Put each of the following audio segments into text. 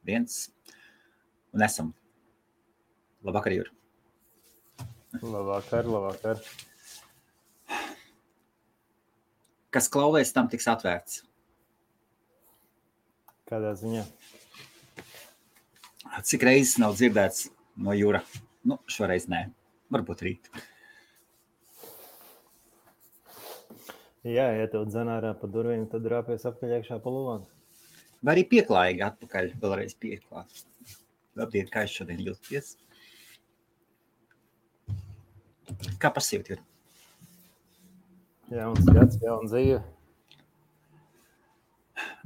1. Un esam. Labvakar, Jūri. Labvakar. Kas klauvēs, tam tiks atvērts. Kādā ziņā? Cik reizes nav dzirdēts no Jūra? Nu, šoreiz nē. Varbūt rīt. Jā, ja tev dzen ārā pa durvīm, tad rāpies apkaļ iekšā pa lūvām. Vai arī pieklājīgi atpakaļ, vēlreiz pieklāt. Labdien, kā es šodien jūties? Kā pasīvt, Jūri? Jauns gads, jauna dzīve.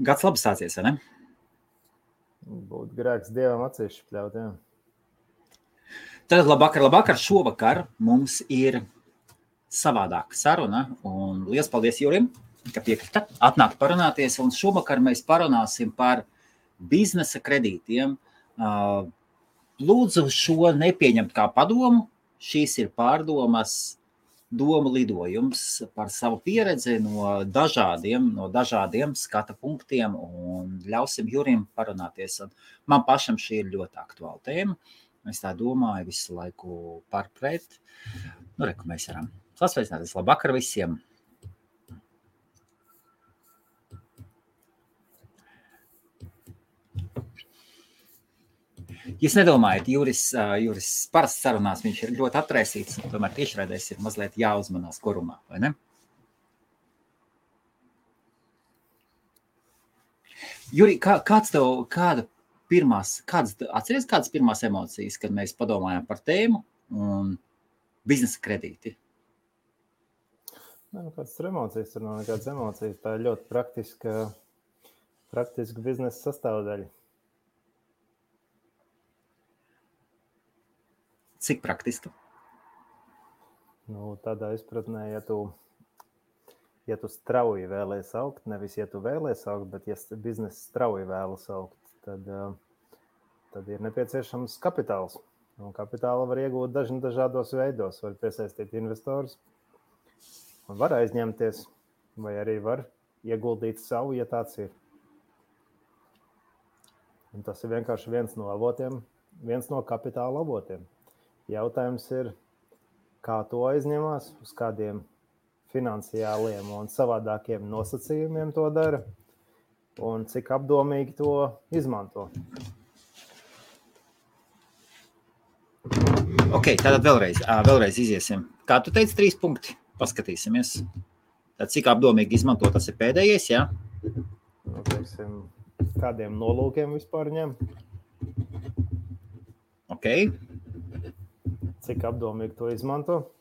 Gads labi sācies, vai ne? Būtu grēks Dievam acīs špļaut, jā. Tad labvakar. Šovakar mums ir savādāka saruna. Un liels paldies Jūrim, ka piekrita atnākt parunāties. Un šovakar mēs parunāsim par biznesa kredītiem. Lūdzu šo nepieņemt kā padomu. Šīs ir pārdomas, domu lidojums par savu pieredzi no dažādiem skata punktiem un ļausim Jurim parunāties. Un man pašam šī ir ļoti aktuāla tēma. Es tā domāju visu laiku pārpret. Nu, reku mēs varam sasveicināties. Labvakar visiem! Jūs nedomājat, Juris parasti sarunās, viņš ir ļoti atraisīts, un tomēr tiešraidēs ir mazliet jāuzmanās korumā, vai ne? Juri, atceries kādas pirmās emocijas, kad mēs padomājām par tēmu un biznesa kredīti? Kādas tur emocijas, tur nav nekādas emocijas, tā ir ļoti praktiska biznesa sastāvdaļa. Cik praktiski? Tādā izpratnē, ja tu strauji vēlies augt, nevis ja tu vēlies augt, bet ja biznesa strauji vēlas augt, tad ir nepieciešams kapitāls. Un kapitāla var iegūt dažādos veidos. Var piesaistīt investorus, var aizņemties, vai arī var ieguldīt savu, ja tāds ir. Un tas ir vienkārši viens no kapitāla avotiem. Jautājums ir, kā to aizņemās, uz kādiem finansiāliem un savādākiem nosacījumiem to dara un cik apdomīgi to izmanto. Ok, tātad vēlreiz iziesim. Kā tu teici, 3 punkti? Paskatīsimies. Tad cik apdomīgi izmanto, tas ir pēdējais, jā? Teiksim, kādiem nolūkiem vispār ņem? Ok. Cik apdomīgi to izmanto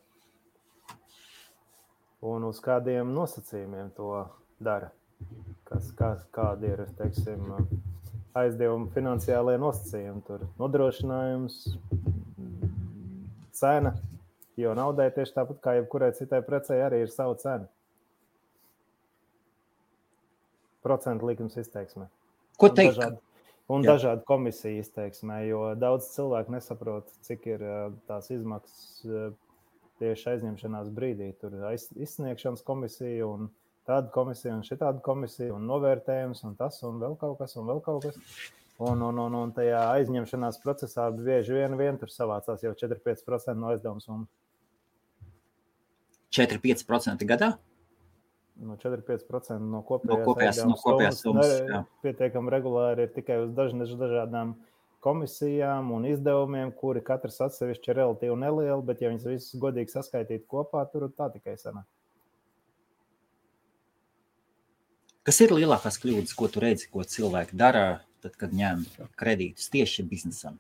un uz kādiem nosacījumiem to dara. Kādi ir, teiksim, aizdevumi finansiālajie nosacījumi. Tur nodrošinājums, cena, jo naudai tieši tāpat kā jebkurai citai precei arī ir sava cena. Procentu likums izteiksmē. Ko teikt? Un dažādi komisiju izteiksmē, jo daudz cilvēku nesaprot, cik ir tās izmaksas tieši aizņemšanās brīdī. Tur ir izsniegšanas komisija un tāda komisija un šitāda komisija un novērtējums un tas un vēl kaut kas. Un tajā aizņemšanās procesā bieži vien tur savācās jau 4-5% no aizdevuma summas. 4-5% gadā? 4-5% no kopējās summas pietiekami regulāri ir tikai uz dažādām komisijām un izdevumiem, kuri katrs atsevišķi ir relatīvi nelieli, bet ja viņas visas godīgi saskaitītu kopā, tur tā tikai sanāk. Kas ir lielākās kļūdas, ko tu redzi, ko cilvēki dara, tad, kad ņem kredītus tieši biznesam?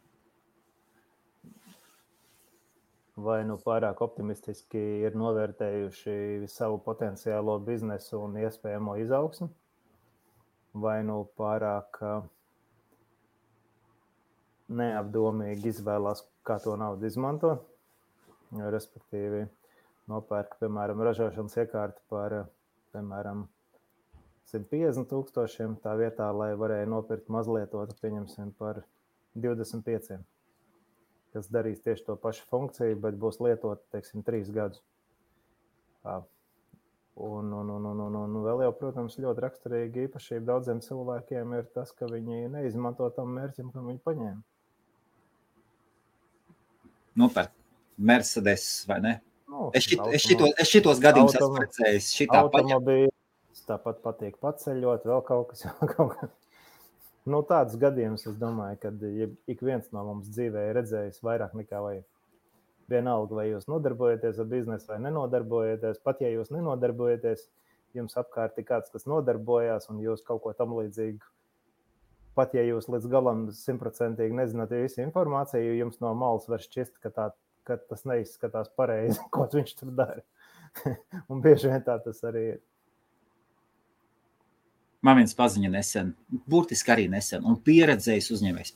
Vai pārāk optimistiski ir novērtējuši savu potenciālo biznesu un iespējamo izaugsmi, vai pārāk neapdomīgi izvēlās, kā to naudu izmanto, respektīvi nopērk, piemēram, ražošanas iekārti par, piemēram, 150,000 tā vietā, lai varēja nopirkt mazlietotu, pieņemsim, par 25. kas darīs tieši to pašu funkciju, bet būs lietot, teiksim, 3 gadus. Un vēl jau, protams, ļoti raksturīgi īpašība daudziem cilvēkiem ir tas, ka viņi neizmanto tam mērķim, kam viņi paņēma. Nopērk Mercedes, vai ne? Nu, Es šitos gadījumus esmu redzējis. Automobīļus, tāpat patīk paceļot, vēl kaut kas. Nu, tāds gadījums, es domāju, ka ik viens no mums dzīvē ir redzējis vairāk nekā vajag. Vienalga, vai jūs nodarbojaties ar biznesu vai nenodarbojaties, pat ja jūs nenodarbojaties, jums apkārt ir kāds, kas nodarbojās un jūs kaut ko tam līdzīgu. Pat ja jūs līdz galam 100% nezināt visu informāciju, jums no malas var šķist, ka tas neizskatās pareizi, ko viņš tur dara. Un bieži vien tā tas arī ir. Man viens paziņa nesen, burtiski arī nesen, un pieredzējis uzņēmējs.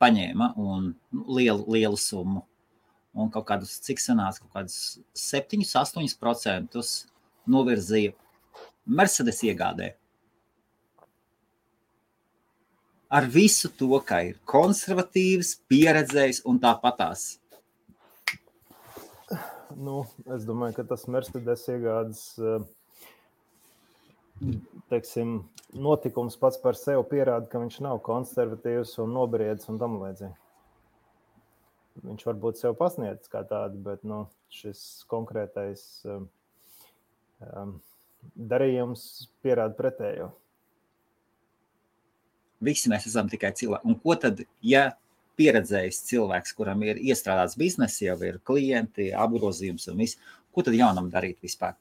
Paņēma un lielu summu. Un kaut kādus, cik sanāca, kaut kādus 7-8% novirzīja Mercedes iegādē. Ar visu to, ka ir konservatīvs, pieredzējis un tāpatās. Nu, es domāju, ka tas Mercedes iegādes, teiksim, notikums pats par sevi pierāda, ka viņš nav konservatīvs un nobriedis un tam līdzīgi. Viņš varbūt sev pasniedz kā tādu, bet šis konkrētais darījums pierāda pretējo. Visi mēs esam tikai cilvēki. Un ko tad, ja pieredzējis cilvēks, kuram ir iestrādāts bizness, jau ir klienti, apgrozījums un viss, ko tad jaunam darīt vispār?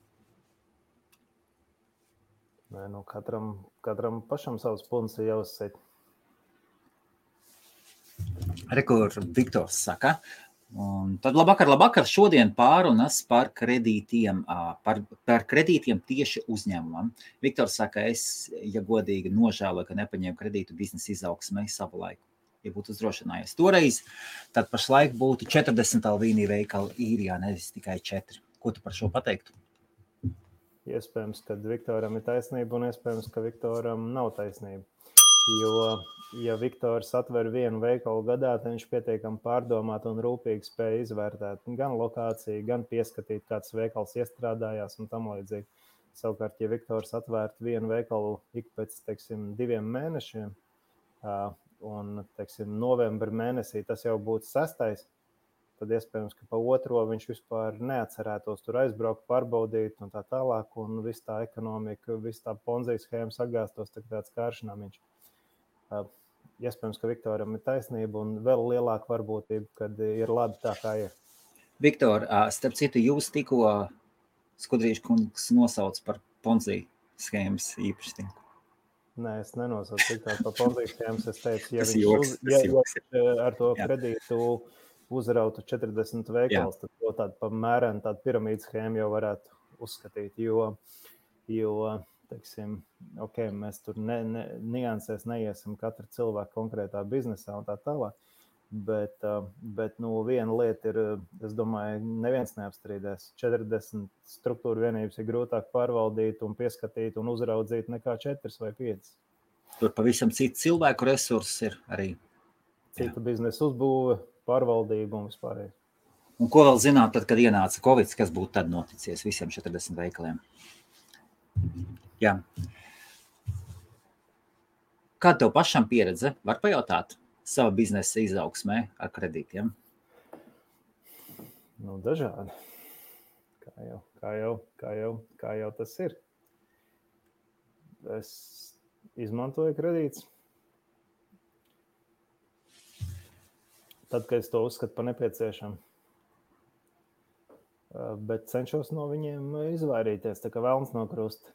Nē, katram pašam savs punts ir jāuzsēt. Rekur Viktors saka. Un tad labvakar, šodien pārunas par kredītiem tieši uzņēmumam. Viktors saka, es, ja godīgi, nožēloju, ka nepaņēmu kredītu biznesa izaugsmai savu laiku. Ja būtu uzdrošinājies toreiz, tad pašlaik būtu 40 Alvīnī veikali Īrijā, nevis tikai 4. Ko tu par šo pateiktu? Iespējams, ka Viktoram ir taisnība un iespējams, ka Viktoram nav taisnība. Jo, ja Viktors atver vienu veikalu gadā, tad viņš pietiekami pārdomāt un rūpīgi spēja izvērtēt gan lokāciju, gan pieskatīt, kāds veikals iestrādājās un tam līdzīgi. Savukārt, ja Viktors atvērtu vienu veikalu ik pēc, 2 mēnešiem, un, novembra mēnesī tas jau būtu 6. tad iespējams, ka pa 2. viņš vispār neatcerētos tur aizbraukt, pārbaudīt un tā tālāk, un viss tā ekonomika, viss tā ponzijas schēma sagāstos tāds kāršanāmiņš. Iespējams, ka Viktoram ir taisnība un vēl lielāka varbūtība, kad ir labi tā, kā ir. Viktor, starp citu, jūs tikko Skudrīša kungs nosauc par ponziju schēmas īpašnieku. Nē, es nenosaucu Viktoru par ponziju schēmas. Es teicu, ja viņš ar to kredītu uzrautu 40 veikals, tad to tādu pamērenu, tādu piramīdu schēmu jau varētu uzskatīt, jo mēs tur niansēs neiesim katra cilvēka konkrētā biznesā un tā tālāk, bet viena lieta ir, es domāju, neviens neapstrīdēs. 40 struktūra vienības ir grūtāk pārvaldīt un pieskatīt un uzraudzīt nekā 4 vai 5. Tur pavisam citi cilvēku resursi ir arī. Cita biznesa uzbūve, pārvaldība un vispārējais. Un ko vēl zināt, tad, kad ienāca Covid, kas būtu tad noticies visiem 40 veikaliem? Jā. Kāda tev pašam pieredze? Var pajautāt sava biznesa izaugsmē ar kredītiem? Dažādi. Kā jau tas ir. Es izmantoju kredītus. Tad, kad es to uzskatu par nepieciešamu. Bet cenšos no viņiem izvairīties, tā kā velns no krusta.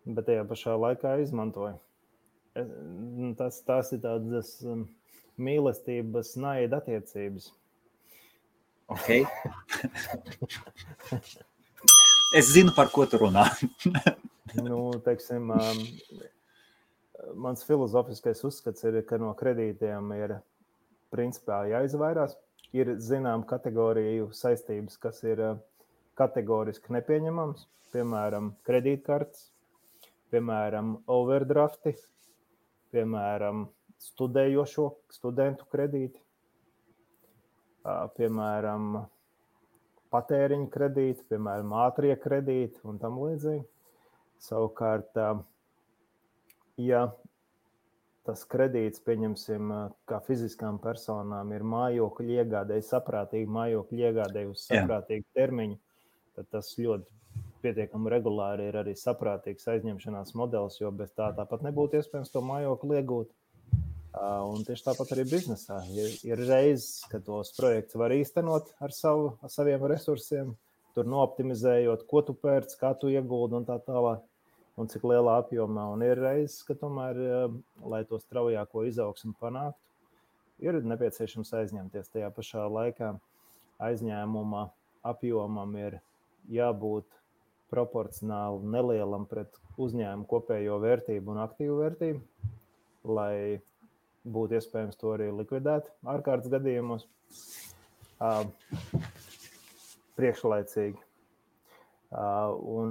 Bet tajā pašā laikā izmantoju. Tas ir tādas mīlestības, naida attiecības. Ok. Es zinu, par ko tu runā. Mans filozofiskais uzskats ir, ka no kredītiem ir principā jāizvairās. Ir zinām kategoriju saistības, kas ir kategoriski nepieņemams, piemēram, kredītkartes, piemēram, overdrafti, piemēram, studentu kredīti. piemēram, patēriņa kredīti, piemēram, ātrie kredīti un tam līdzīgi. Savukārt, ja tas kredīts, pieņemsim, kā fiziskām personām ir mājokļu iegādēji, saprātīgi mājokļu iegādēji uz saprātīgu termiņu, tad tas ļoti pietiekami regulāri ir arī saprātīgs aizņemšanās modelis, jo bez tā tāpat nebūtu iespējams to mājokli iegūt. Un tieši tāpat arī biznesā. Ir reizes, kad tos projekts var īstenot ar saviem resursiem, tur nooptimizējot, ko tu pērc, kā tu ieguldi un tā tālāk, un cik lielā apjomā. Un ir reizes, ka tomēr, lai to straujāko izaugsmu panāktu, ir nepieciešams aizņemties. Tajā pašā laikā aizņēmuma apjomam ir jābūt proporcionāli nelielam pret uzņēmumu kopējo vērtību un aktīvu vērtību, lai būtu iespējams to arī likvidēt ārkārtas gadījumos priekšlaicīgi. Un,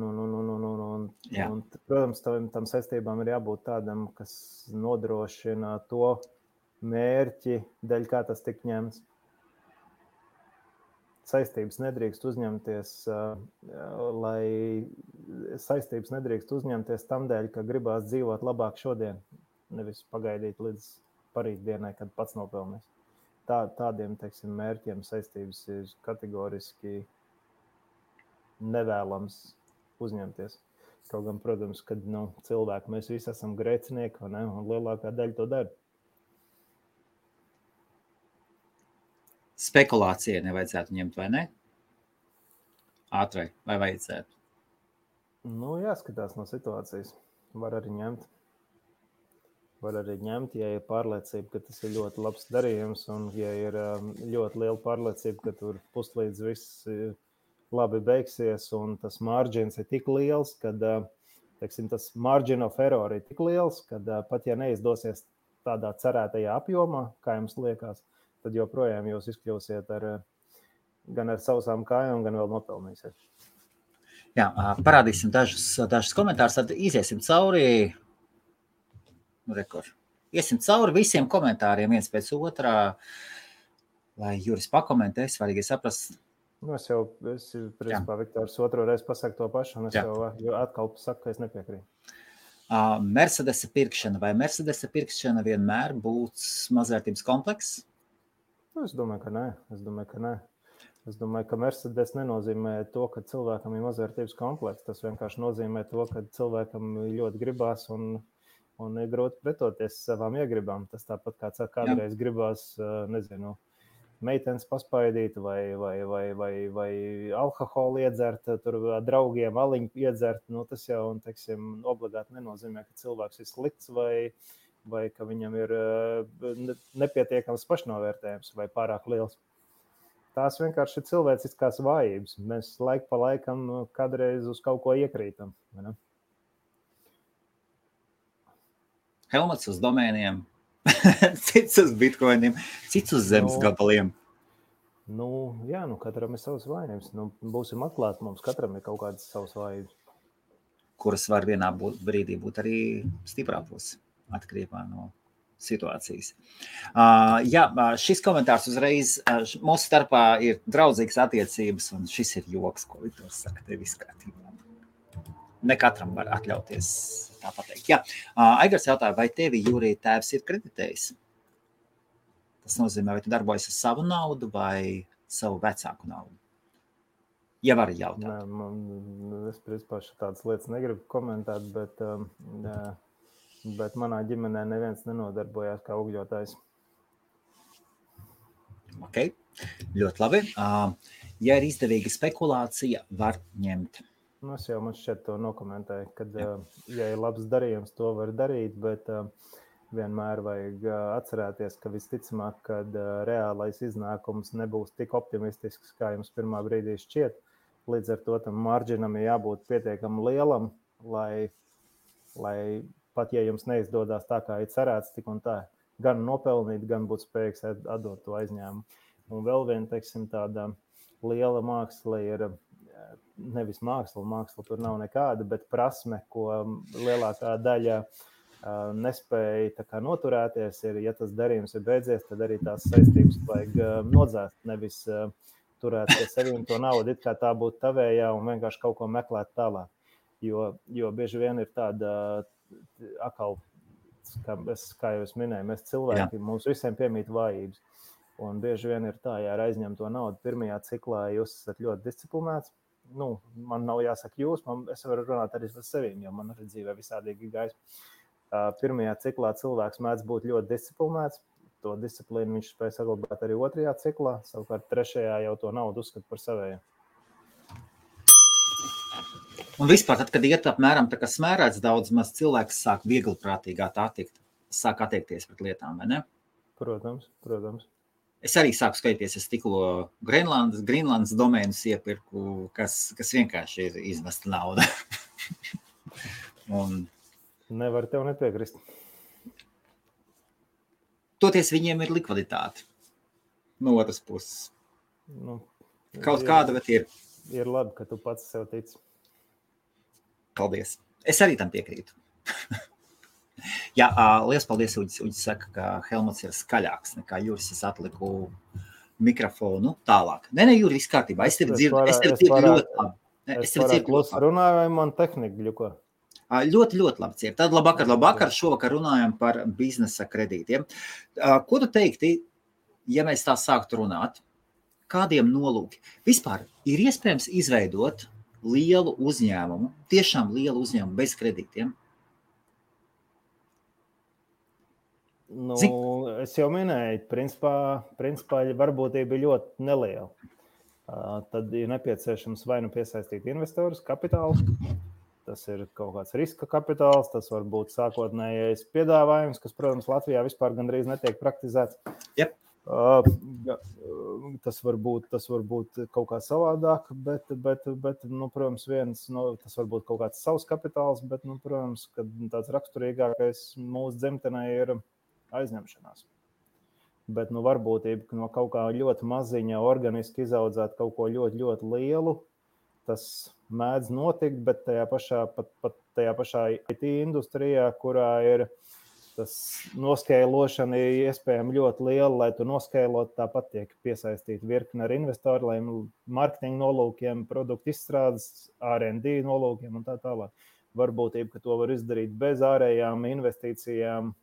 protams, tam saistībām ir jābūt tādam, kas nodrošina to mērķi, dēļ kā tas tik ņemts. Saistības nedrīkst uzņemties tam dēļ, ka gribās dzīvot labāk šodien, nevis pagaidīt līdz parītdienai, kad pats nopelnīs. Tādiem, teiksim, mērķiem saistības ir kategoriski nevēlams uzņemties. Kaut gan, protams, kad cilvēki mēs visi esam grēcinieki, un lielākā daļa to dara. Spekulācija nevajadzētu ņemt, vai ne? Ātrai, vai vajadzētu? Jāskatās no situācijas. Var arī ņemt, ja ir pārliecība, ka tas ir ļoti labs darījums, un ja ir ļoti liela pārliecība, ka tur puslīdz viss labi beigsies, un tas margins ir tik liels, kad, teiksim, tas margin of error ir tik liels, kad pat ja neizdosies tādā cerētajā apjomā, kā jums liekas, tad joprojām jūs izkļūsiet gan ar sausām kājām, gan vēl nopelnīsiet. Jā, parādīsim dažus komentārus, tad iziesim cauri. Iesim cauri visiem komentāriem viens pēc otrā, lai Juris pakomentē, svarīgi saprast. Es principā, Viktors, otro reizi pasaku to pašu, un es jau atkal saku, ka es nepiekrītu. Mercedesa pirkšana. Vai Mercedesa pirkšana vienmēr būs mazvērtības komplekss? Es domāju, ka nē. Es domāju, ka Mercedes nenozīmē to, ka cilvēkam ir mazvērtības komplekss. Tas vienkārši nozīmē to, ka cilvēkam ļoti gribās un ir grūti pretoties savām iegribām. Tas tāpat kā kādreiz gribās, meitenes paspaidīt vai alkoholu iedzert, tur draugiem aliņu iedzert. Tas jau, teiksim, obligāti nenozīmē, ka cilvēks ir slikts vai ka viņam ir nepietiekams pašnovērtējums vai pārāk liels. Tās vienkārši ir cilvēciskās vājības. Mēs laiku pa laikam kādreiz uz kaut ko iekrītam. Helmets uz domēniem, cits uz bitkoiniem, cits uz zemes gabaliem. Katram ir savas vājības. Būsim atklāti, mums katram ir kaut kādas savas vājības. Kuras var vienā brīdī būt arī stiprā puse, atkarībā no situācijas. Šis komentārs uzreiz, mūsu starpā ir draudzīgas attiecības, un šis ir joks, ko Viktors saka, tev viss kārtībā. Ne katram var atļauties tā pateikt. Aigars jautāja, vai tevi, Jūrī, tēvs ir kreditējis? Tas nozīmē, vai tu darbojas ar savu naudu vai savu vecāku naudu? Ja var jautāt. Es principā tādas lietas negribu komentēt, bet manā ģimenē neviens nenodarbojās kā ugļotājs. Ok, ļoti labi. Ja ir izdevīga spekulācija, var ņemt. Es jau man šķiet to nokomentēju, kad, ja ir labs darījums, to var darīt, bet vienmēr vajag atcerēties, ka visticamāk, kad reālais iznākums nebūs tik optimistisks, kā jums pirmā brīdī šķiet. Līdz ar to tam marginam ir jābūt pietiekami lielam, lai pat ja jums neizdodas tā, kā ir cerēts, tik un tā, gan nopelnīt, gan būt spējīgs atdot to aizņēmumu. Un vēl viena, teiksim, tāda liela māksla ir nevis māksla tur nav nekāda, bet prasme, ko lielākā daļa nespēja tā kā noturēties, ja tas darījums ir beidzies, tad arī tās saistības vajag nodzēst, nevis turēt pie sevīm to naudu, it kā tā būtu tavējā un vienkārši kaut ko meklēt tālāk. Jo bieži vien ir tāda atkal, kā jau es minēju, mēs cilvēki, mums visiem piemīt vājības. Un bieži vien ir tā, ja aizņem to naudu pirmajā ciklā, jūs esat ļoti disciplinēts. Man nav jāsaka jūs, es varu runāt arī par sevīm, jo man arī dzīvē visādīgi gājis. Pirmajā ciklā cilvēks mēdz būt ļoti disciplinēts. To disciplīnu viņš spēj saglabāt arī otrajā ciklā. Savukārt trešajā jau to naudu uzskata par savējiem. Un vispār, tad, kad iet apmēram tā kā smērēts daudz maz cilvēks sāk viegliprātīgāk sāk attiekties pret lietām, vai ne? Protams. Es arī sāku skaities, es tikko Grīnlandes domēnus iepirku, kas vienkārši ir izmesta nauda. Un nevar tev nepiekrist. Toties viņiem ir likviditāte. No otras puses. Kaut kāda, bet ir. Ir labi, ka tu pats sev tici. Paldies. Es arī tam piekrītu. Jā, liels paldies, Uģis saka, ka Helmuts ir skaļāks nekā Juris. Es atliku mikrofonu tālāk. Nē, Juri, viss kārtībā. Es tevi dzirdu ļoti labi. Es varētu klusi runāju, vai man tehnika ļuko? Ļoti, ļoti labi cier. Tad labvakar. Šovakar runājam par biznesa kredītiem. Ko tu teikti, ja mēs tā sāktu runāt? Kādiem nolūki? Vispār ir iespējams izveidot lielu uzņēmumu, tiešām lielu uzņēmumu bez kredītiem? Es jau minēju, principā varbūtība ir ļoti neliela. Tad ir nepieciešams vai nu piesaistīt investorus, kapitālu. Tas ir kaut kāds riska kapitāls, tas var būt sākotnējais piedāvājums, kas, protams, Latvijā vispār gandrīz netiek praktizēts. Yep. Tas var būt kaut kā savādāk, bet protams, tas var būt kaut kāds savs kapitāls, bet, protams, kad tāds raksturīgākais mūsu dzimtenē ir aizņemšanās. Bet, varbūtība no kaut kā ļoti maziņa organiski izaudzēt kaut ko ļoti, ļoti lielu, tas mēdz notikt, bet tajā pašā IT industrijā, kurā ir tas noskeilošana ir iespējami ļoti liela, lai tu noskailot, tāpat tiek piesaistīti virkni ar investoru, lai marketinga nolūkiem, produktu izstrādes, R&D nolūkiem un tā tālāk. Varbūtība, ka to var izdarīt bez ārējām investīcijām,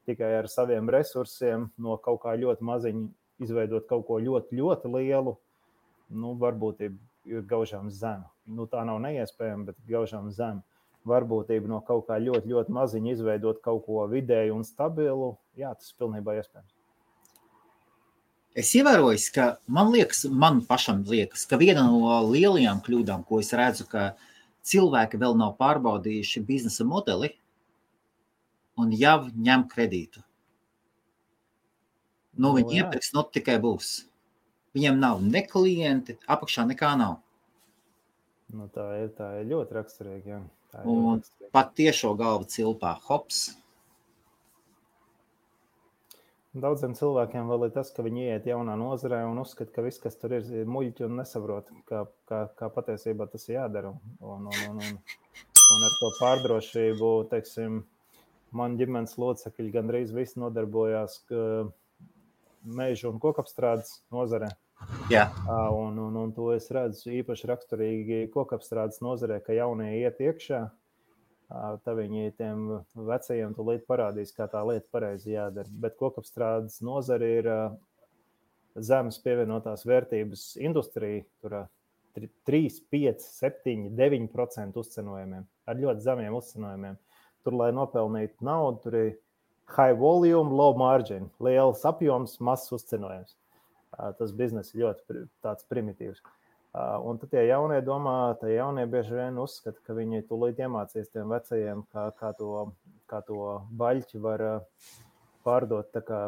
tikai ar saviem resursiem, no kaut kā ļoti maziņa izveidot kaut ko ļoti, ļoti lielu, varbūtība ir gaužām zema. Tā nav neiespējama, bet gaužām zema. Varbūtība no kaut kā ļoti, ļoti maziņa izveidot kaut ko vidēju un stabilu, jā, tas pilnībā iespējams. Es ievēroju, ka man pašam liekas, ka viena no lielajām kļūdām, ko es redzu, ka cilvēki vēl nav pārbaudījuši biznesa modeli un jau ņem kredītu. Viņi iepirks, tikai būs. Viņiem nav ne klienti, apakšā nekā nav. Tā ir ļoti raksturīgi, jā. Un pat tiešo galvu cilpā, hops. Daudziem cilvēkiem vēl ir tas, ka viņi ieiet jaunā nozarē un uzskata, ka viss, kas tur ir muļķi un nesaprot, kā patiesībā tas ir jādara. Un ar to pārdrošību, teiksim, man ģimenes locekļi gandrīz visi nodarbojās mežu un kokapstrādes nozarē. Jā. Un to es redzu īpaši raksturīgi kokapstrādes nozarē, ka jaunie iet iekšā, tad viņi tiem vecajiem tūlīt parādīs, kā tā lieta pareizi jādara. Bet kokapstrādes nozare ir zemes pievienotās vērtības industrija, tur 3, 5, 7, 9% uzcenojumiem, ar ļoti zemiem uzcenojumiem. Tur, lai nopelnītu naudu, tur ir high volume, low margin, liels apjoms, mazs uzcenojums. Tas bizness ir ļoti tāds primitīvs. Un tad tie jaunie bieži vien uzskata, ka viņi tūlīt iemācīs tiem vecajiem, kā to baļķi var pārdot tā kā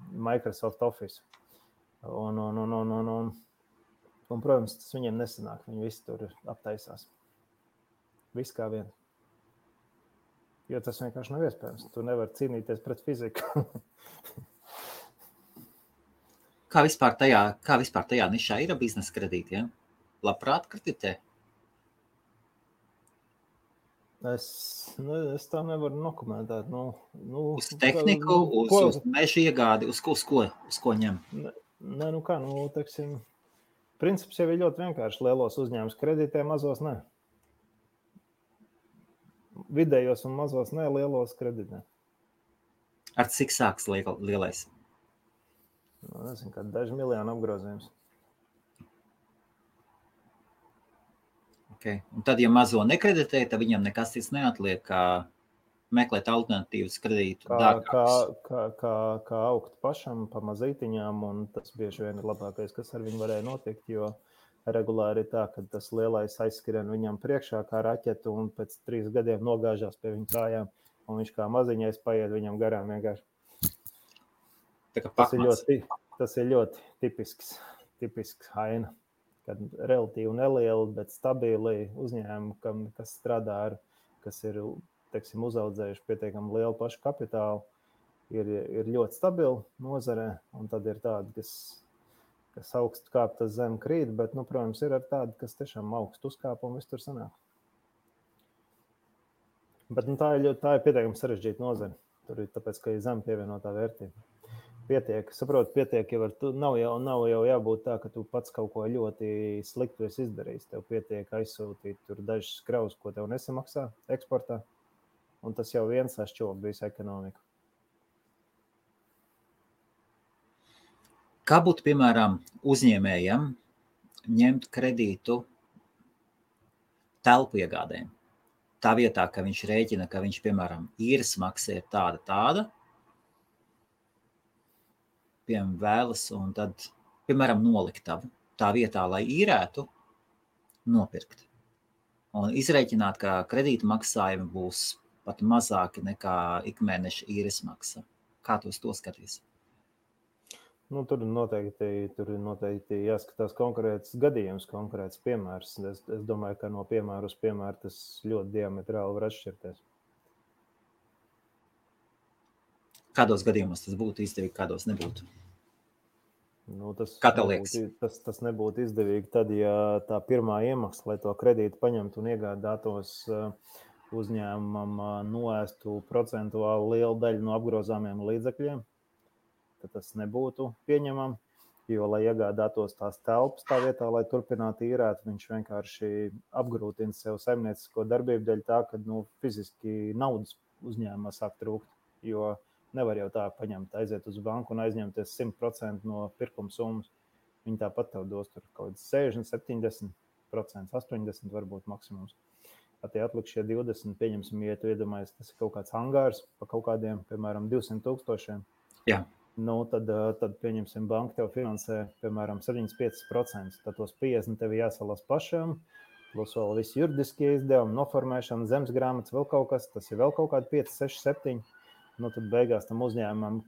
Microsoft Office. Un, protams, tas viņiem nesanāk. Viņi visi tur aptaisās. Viss kā viens. Jo tas vienkārši nav iespējams. Tu nevari cīnīties pret fiziku. Kā vispār tajā nišā ir biznesa kredīti? Ja? Labprāt kreditē? Es tā nevaru nokomentēt. Uz tehniku, uz meža iegādi, uz ko ņem? Teiksim, princips jau ir ļoti vienkārši. Lielos uzņēmumus kreditē, mazos ne. Vidējos un mazos ne, lielos kreditē. Ar cik sāks lielais? Nezinu, kā daži miljoni apgrozījums. Okay. Un tad, ja mazo nekreditē, tad viņam nekas cits neatliek, kā meklēt alternatīvas kredītu dārgākus. Kā augt pašam pa mazītiņām, un tas bieži vien ir labākais, kas ar viņu varēja notikt, jo regulāri ir tā, ka tas lielais aizskrien viņam priekšā kā raķetu un pēc 3 gadiem nogāžās pie viņa kājām, un viņš kā maziņais paiet viņam garām vienkārši. Tas ir ļoti tipisks haina, kad relatīvi nelieli, bet stabili uzņēmumi, kas strādā ar, kas ir, teiksim, uzaudzējuši pietiekami lielu pašu kapitālu, ir ļoti stabili nozarē, un tad ir tādi, kas augstu kāp, tas zem krīt, bet, protams, ir ar tādi, kas tiešām augstu uzkāp un viss tur sanāk. Bet tā ir pietiekami sarežģīta nozara. Tur ir tāpēc, ka ir zem pievienotā vērtība. Pietiek jau nav jau jābūt tā, ka tu pats kaut ko ļoti sliktu esi izdarījis. Tev pietiek aizsūtīt tur dažas kravas, ko tev nesamaksā eksportā, un tas jau viens sašķob visu ekonomiku. Kā būtu, piemēram, uzņēmējam ņemt kredītu telpu iegādēm? Tā vietā, ka viņš rēķina, ka viņš, piemēram, īres maksa ir tāda, piemēram, vēlas, un tad, piemēram, noliktavu tā vietā, lai īrētu, nopirkt. Un izrēķināt, ka kredīta maksājumi būs pat mazāki nekā ikmēneša īres maksa. Kā tu uz to skaties? Tur ir noteikti jāskatās konkrēts gadījums, konkrēts piemērs. Es domāju, ka no piemēra uz piemēru tas ļoti diametrāli var atšķirties. Kādos gadījumos tas būtu izdevīgi, kādos nebūtu? Kā tev liekas? Tas nebūtu izdevīgi tad, ja tā pirmā iemesla, lai to kredītu paņemtu un iegādātos uzņēmumam noēstu procentuāli lielu daļu no apgrozāmiem līdzekļiem, tad tas nebūtu pieņemam, jo, lai iegādātos tās telpas tā vietā, lai turpinātu īrēt, viņš vienkārši apgrūtina sev saimniecisko darbību dēļ tā, ka fiziski naudas uzņēmumā sāk trūkt, jo nevar jau tā paņemt, aiziet uz banku un aizņemties 100% no pirkuma summas. Viņi tāpat tev dos tur kaut kāds 60, 70%, 80% varbūt maksimums. Tie atlikušie 20, pieņemsim, ja tu iedomājies, tas ir kaut kāds angārs pa kaut kādiem, piemēram, 200,000. Jā. Tad pieņemsim, banka tev finansē, piemēram, 75%. Tad tos 50 tev jāsalas pašam, plus vēl visi juridiskie izdevumi, noformēšana, zemes grāmatas, vēl kaut kas, tas ir vēl kaut kādi 5, 6, 7. Tad beigās tam uzņēmumam,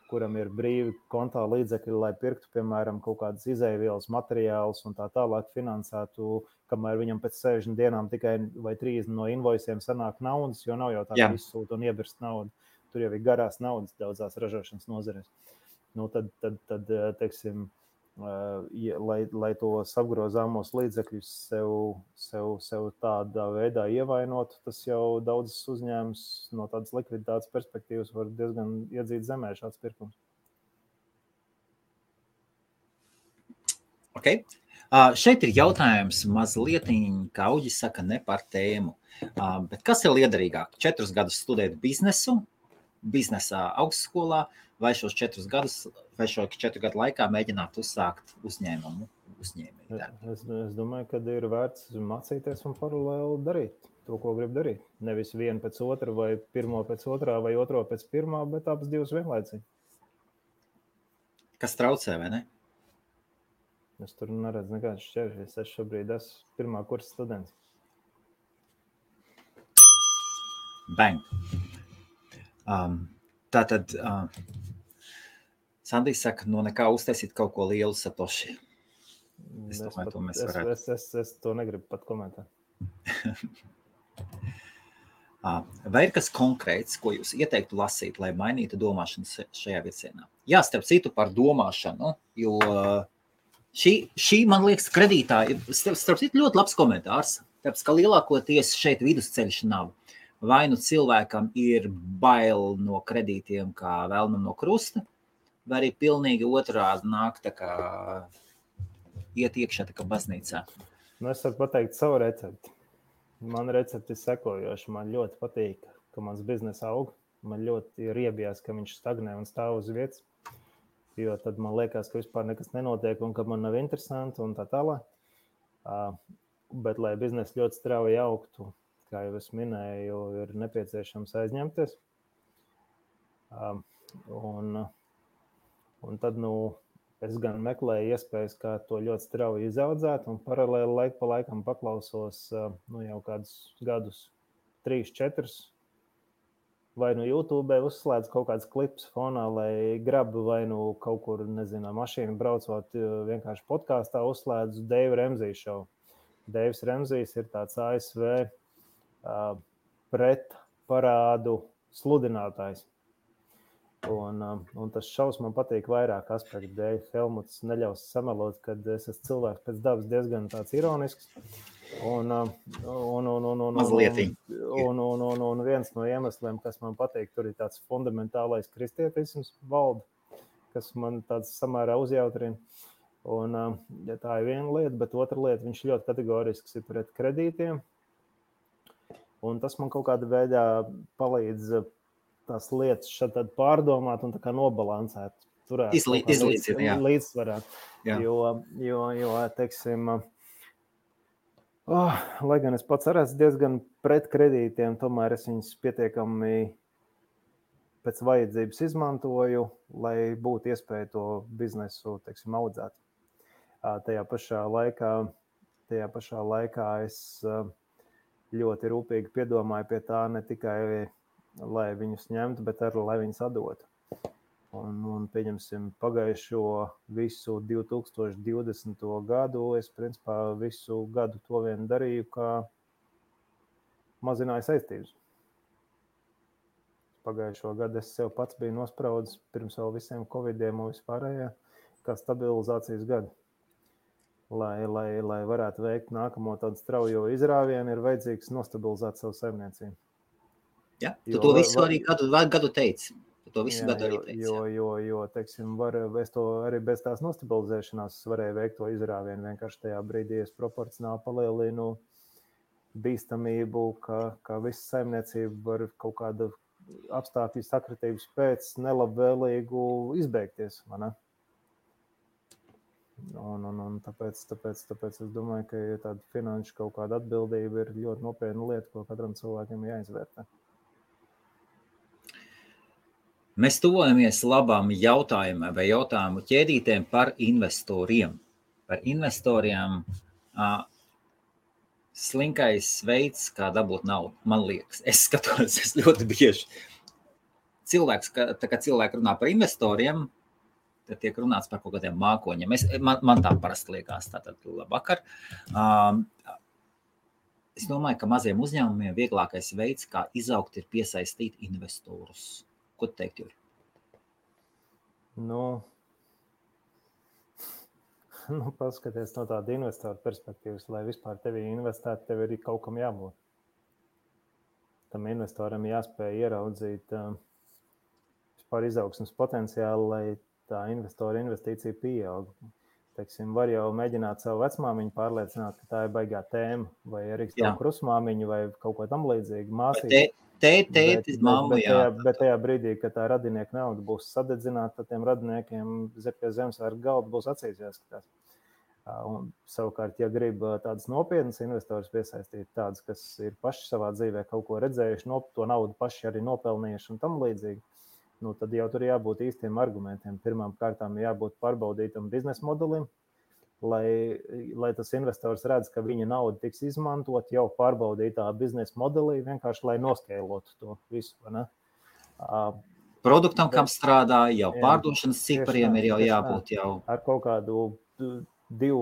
kuram ir brīvi kontā līdzekļi, lai pirktu, piemēram, kaut kādas izēvielas, materiālus un tā tālāk finansētu, kamēr viņam pēc 60 dienām tikai vai 30 no invoisiem sanāk naudas, jo nav jau tā, ka izsūta un iebirst naudu. Tur jau ir garās naudas daudzās ražošanas nozarēs. Tad teiksim, lai tos apgrozāmos līdzekļus sev tādā veidā ievainotu, tas jau daudzas uzņēmums no tādas likviditātes perspektīvas var diezgan iedzīt zemē šāds pirkums. Okay. Šeit ir jautājums mazliet, kā Uģis saka, ne par tēmu. Bet kas ir liederīgāk? 4 gadus studēt biznesā augstskolā, vai šos 4 gadus, vai šo 4 gadu laikā mēģināt uzsākt uzņēmumu? Es domāju, ka ir vērts mācīties un paralēli darīt to, ko grib darīt. Nevis vienu pēc otra, vai pirmo pēc otrā, vai otro pēc pirmā, bet abas divas vienlaicīgi. Kas traucē, vai ne? Es tur neredzu nekādas šķēršļus. Es šobrīd esmu pirmā kursa students. Bang! Tātad Sandijs saka, nekā uztaisīt kaut ko lielu Satoshi. Es domāju, to mēs varētu. Es to negribu pat komentēt. Vai ir kas konkrēts, ko jūs ieteiktu lasīt, lai mainītu domāšanu šajā virzienā? Jā, starp citu par domāšanu, jo šī man liekas, kredītā ir starp citu ļoti labs komentārs, tāpēc, ka lielākoties šeit vidusceļš nav. vai nu cilvēkam ir bail no kredītiem kā velnam no krusta, vai arī pilnīgi otrādi nāk tā kā iet iekšā tā kā baznīcā. Nu, es varu pateikt savu recepti. Man recepti ir sekojoši. Man ļoti patīk, ka mans biznes aug. Man ļoti riebjās, ka viņš stagnē un stāv uz vietas. Jo tad man liekas, ka vispār nekas nenotiek un ka man nav interesanti un tā tālāk. Bet, lai biznes ļoti strauji augtu, kā jau es minēju, ir nepieciešams aizņemties. Un tad, es gan meklēju iespējas, kā to ļoti strauji izaudzēt, un paralēli laiku pa laikam paklausos jau kādus gadus 3-4, vai YouTube uzslēdz kaut kāds klips fonā, lai grabu vai kaut kur, nezinu, mašīnu braucot, vienkārši podkāstā uzslēdzu Deiva Remzija šovu. Deivs Remzijs ir tāds ASV pret parādu sludinātājs. Un tas šovs man patīk vairāk aspektu dēļ. Helmuts neļaus samelot, kad es esmu cilvēks pēc dabas diezgan tāds ironisks. Un viens no iemesliem, kas man patīk, tur ir tāds fundamentālais kristietisms valda, kas man tāds samērā uzjautrina. Un tā ir viena lieta, bet otra lieta, viņš ļoti kategorisks ir pret kredītiem. Un tas man kaut kādā veidā palīdz tās lietas šeit pārdomāt un tā kā nobalansēt, turēt līdzsvarā. Jo, teiksim, lai gan es pats arī esmu diezgan pret kredītiem, tomēr es viņus pietiekami pēc vajadzības izmantoju, lai būtu iespēja to biznesu, teiksim, audzēt. Tajā pašā laikā es ļoti rūpīgi piedomāju pie tā ne tikai lai viņus ņemtu, bet arī, lai viņus atdotu. Un pieņemsim, pagājušo visu 2020. gadu, es principā visu gadu to vien darīju, kā mazināju saistības. Pagājušo gadu es sev pats biju nospraudis pirms vēl visiem covidiem un vispārējā, kā stabilizācijas gadu. Lai varētu veikt nākamo tādu straujo izrāvienu, ir vajadzīgs nostabilizēt savu saimniecību. Ja, tu to visu arī gadu teici. To visu gadu arī teici. Jo, teiksim, es to arī bez tās nostabilizēšanās varēju veikt to izrāvienu. Vienkārši tajā brīdī es proporcionāli palielinu bīstamību, ka visa saimniecība var kaut kāda apstākļu sakritības pēc nelabvēlīgu izbeigties. Un tāpēc es domāju, ka tāda finanšu kaut kāda atbildība ir ļoti nopietna lieta, ko katram cilvēkam jāizvērtē. Mēs tuvojamies labām jautājumiem vai jautājumu ķēdītēm par investoriem. Par investoriem slinkais veids, kā dabūt naudu, man liekas. Es skatos, es ļoti bieži. Cilvēki runā par investoriem, tad tiek runāts par kaut kādiem mākoņiem. Man tā parasti liekas, tātad labvakar. Es domāju, ka maziem uzņēmumiem vieglākais veids, kā izaugt, ir piesaistīt investorus. Ko tu teikt, Juri? Paskaties no tāda investora perspektīvas, lai vispār tevi investētu, tev ir kaut kam jābūt. Tam investoram jāspēj ieraudzīt vispār izaugsmes potenciālu, lai tā investora investīcija pieaug. Teiksim, var jau mēģināt savu vecmāmiņu pārliecināt, ka tā ir baigā tēma, vai arī savu krusmāmiņu, vai kaut ko tam līdzīgu māsību. Tētis, mamma, bet tajā brīdī, kad tā radinieka nauda būs sadedzināta, tad tiem radiniekiem pie Zemesvētku galda būs acīs jāskatās. Un savukārt, ja grib tādas nopietnas investors piesaistīt, tādas, kas ir paši savā dzīvē kaut ko redzējuši, to naudu paši arī nopelnījuši un tam līdzīgi, tad jau tur jābūt īstiem argumentiem. Pirmām kārtām jābūt pārbaudītam biznesa modelim, lai tas investors redz, ka viņa nauda tiks izmantot jau pārbaudītā biznesa modelī, vienkārši lai noskēlotu to visu. Produktam, kam strādā, jau pārdošanas cipariem ir jau jābūt jau. Ar kaut kādu 2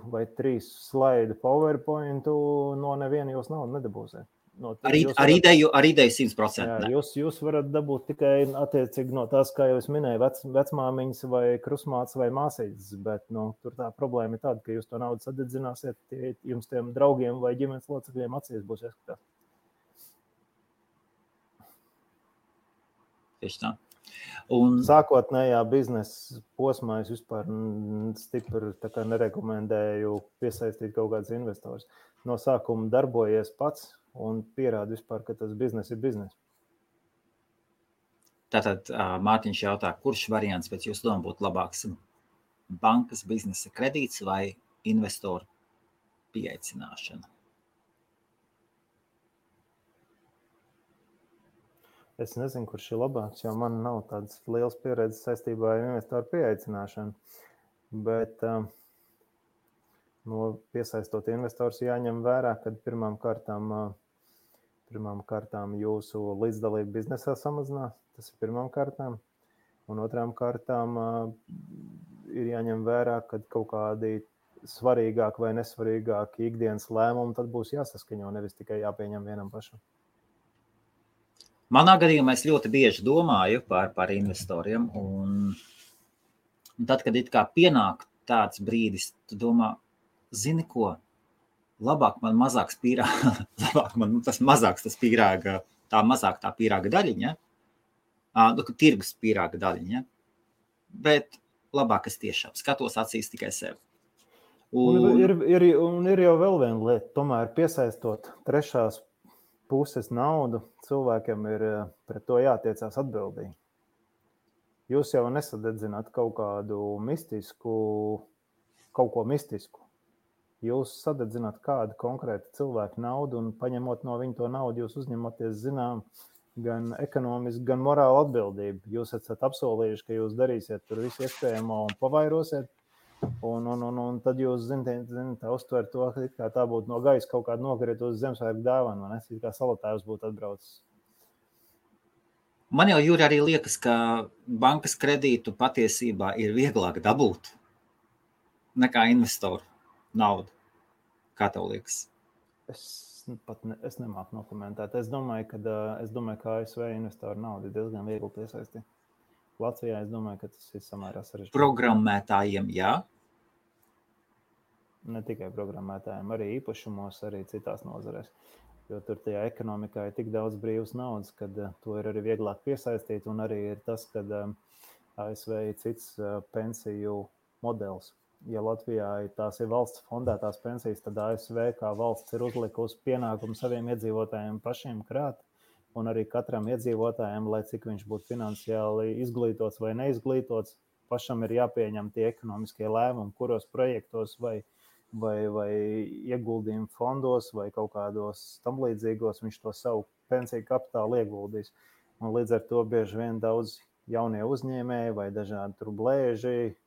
vai 3 slaidu PowerPointu no neviena jūs naudu nedabūsiet. Ar ideju 100%. Jūs varat dabūt tikai attiecīgi no tās, kā jau es minēju, vecmāmiņas vai krusmāts vai māsītes, bet tur tā problēma ir tāda, ka jūs to naudu sadedzināsiet, jums tiem draugiem vai ģimenes locekļiem acīs būs jāskatās. Tieši tā. Un sākotnējā biznesa posmā es vispār stipri nerekomendēju piesaistīt kaut kādus investorus. No sākuma darbojies pats un pierādi vispār, ka tas biznes ir biznes. tātad Mārtiņš jautā, kurš variants pēc jūsu domu būtu labāks? Bankas biznesa kredīts vai investoru pieaicināšana? Es nezinu, kurš ir labāks, jo man nav tādas liels pieredzes saistībā ar investoru pieaicināšanu. Bet piesaistot investors jāņem vērā, ka pirmām kārtām jūsu līdzdalība biznesā samazinās. Tas ir pirmām kārtām. Un otrām kārtām ir jāņem vērā, ka kaut kādi svarīgāki vai nesvarīgāki ikdienas lēmumi tad būs jāsaskaņo, nevis tikai jāpieņem vienam pašam. Manā gadījumā es ļoti bieži domāju par investoriem, un tad, kad it kā pienāk tāds brīdis, tu domā, zini ko, labāk man mazāks pīrāga, labāk man tas mazāks tas pīrāga, mazāk tā pīrāga daļiņa, tirgus pīrāga daļiņa, bet labāk es tiešām skatos acīs tikai sev. Un ir jau vēl viena lieta, tomēr piesaistot trešās puses naudu, cilvēkiem ir pret to jātiecās atbildīgi. Jūs jau nesadedzināt kaut ko mistisku. Jūs sadedzināt kādu konkrētu cilvēku naudu un paņemot no viņa to naudu, jūs uzņematies zinām gan ekonomiski, gan morālu atbildību. Jūs esat apsolījuši, ka jūs darīsiet tur visu iespējamo un pavairosiet. Un tad jūs zināt, uztver to, ka tā būtu no gaisa kaut kāda nokrita uz Ziemassvētku dāvanu, vai ne? Kā salatājs būtu atbraucis. Man jau, Jūri, arī liekas, ka bankas kredītu patiesībā ir vieglāk dabūt nekā investoru naudu. Kā tev liekas? Es nemāku nokomentēt. Es domāju, ka ASV investoru naudu ir diezgan viegli piesaistīt. Latvijā es domāju, ka tas ir samērā sarežģīti. Programmētājiem, jā? Ne tikai programmētājiem, arī īpašumos, arī citās nozarēs. Jo tur tajā ekonomikā ir tik daudz brīvas naudas, kad to ir arī vieglāk piesaistīt. Un arī ir tas, ka ASV ir cits pensiju modelis. Ja Latvijā tās ir valsts fondētās pensijas, tad ASV kā valsts ir uzlikusi pienākumu saviem iedzīvotājiem pašiem krāt. Un arī katram iedzīvotājiem, lai cik viņš būtu finansiāli izglītots vai neizglītots, pašam ir jāpieņem tie ekonomiskie lēmumi, kuros projektos vai ieguldījumu fondos vai kaut kādos tam līdzīgos viņš to savu pensiju kapitālu ieguldīs. Un līdz ar to bieži vien daudz jaunie uzņēmēji vai dažādi tur blēži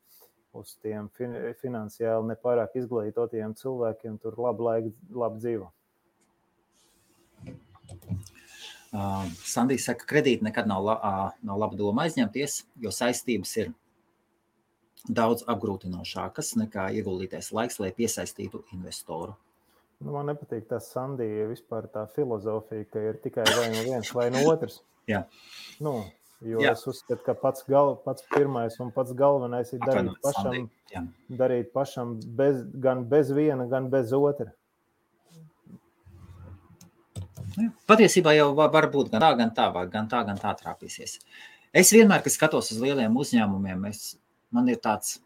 uz tiem finansiāli nepārāk izglītotiem cilvēkiem tur labi dzīvo. Sandija saka, kredīti nekad nav laba doma aizņemties, jo saistības ir daudz apgrūtinošākas nekā ieguldītais laiks, lai piesaistītu investoru. Man nepatīk tas Sandija vispār tā filozofija, ka ir tikai vai no viens vai no otrs. Jā. Es uzskatu, ka pats pirmais un pats galvenais ir darīt pašam gan bez viena, gan bez otra. Patiesībā jau var būt gan tā trāpīsies. Es vienmēr, kad skatos uz lieliem uzņēmumiem, man ir tāds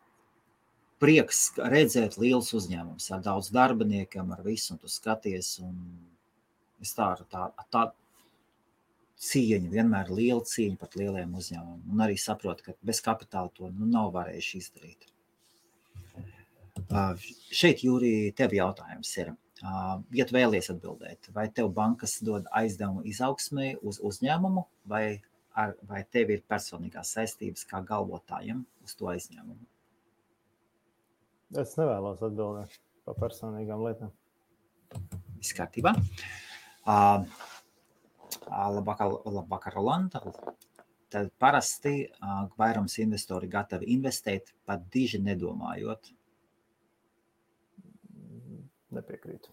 prieks redzēt liels uzņēmums ar daudz darbiniekiem, ar visu, un tu skaties, un es tā cieņa, vienmēr liela cieņa pat lieliem uzņēmumiem, un arī saprotu, ka bez kapitāla to nav varējuši izdarīt. Šeit, Jūri, tev jautājums ir. Ja tu vēlies atbildēt, vai tev bankas dod aizdevumu izaugsmē uz uzņēmumu, vai tev ir personīgās saistības kā galvotājiem uz to aizņēmumu? Es nevēlos atbildēt par personīgām lietām. Viss kārtībā. Labvakar, Rolanda. Tad parasti vairums investori gatavi investēt, pat diži nedomājot. Nepiekrītu.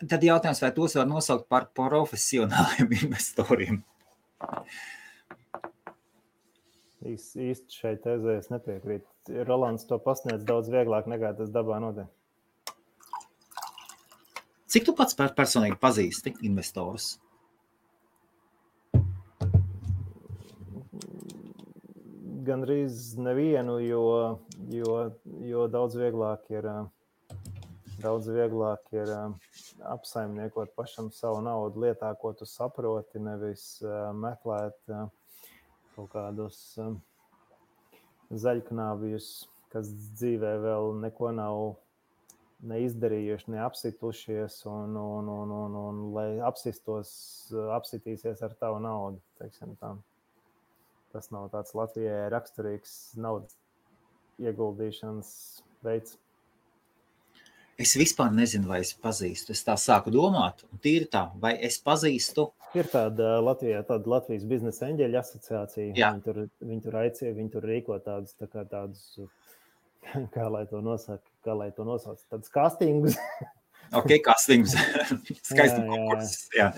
Tad jautājums, vai tos var nosaukt par profesionāliem investoriem? Īsti šai tezē es nepiekrītu. Rolands to pasniedz daudz vieglāk nekā tas dabā notiek. Cik tu pats personīgi pazīsti investorus? gandrīz nevienu, jo daudz vieglāk ir apsaimniekot pašam savu naudu lietā, ko tu saproti, nevis meklēt kaut kādus zaļknābjus, kas dzīvē vēl neko nav neizdarījuši, neapsitušies, un lai apsitīsies ar tavu naudu, teiksim tā. Tas nav tāds Latvijai raksturīgs naudas ieguldīšanas veids. Es vispār nezinu, vai es pazīstu. Es tā sāku domāt, un tīri tā, vai es pazīstu. Ir tāda Latvijas biznesa eņģeļa asociācija. Jā. Viņi tur aicina, viņi tur rīko tādus, kā lai to nosauc, tādus castingus. Ok, castingus. Skaisti konkursus. Jā.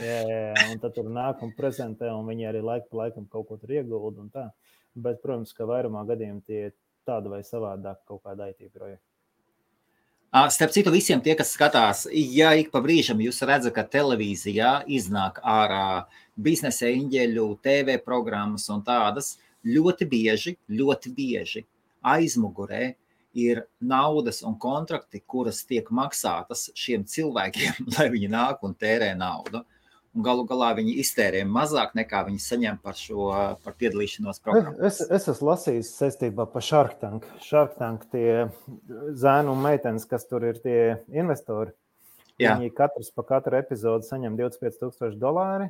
Un tad tur nāk un prezentē, un viņi arī laiku pa laikam kaut ko tur iegulda un tā. Bet, protams, ka vairumā gadījumā tie tāda vai savādāk kaut kāda IT projekta. Starp citu, visiem tie, kas skatās, ja ik pa brīžam jūs redzat, ka televīzijā iznāk ārā biznesa eņģeļu, TV programmas un tādas, ļoti bieži aizmugurē ir naudas un kontrakti, kuras tiek maksātas šiem cilvēkiem, lai viņi nāk un tērē naudu. Un galu galā viņi iztērē mazāk nekā viņi saņem par piedalīšanos programmā. Es esmu lasījis saistībā par Shark Tank. Shark Tank tie zēnu un meitenes, kas tur ir tie investori, Jā. Viņi katrs pa katru epizodu saņem $25,000.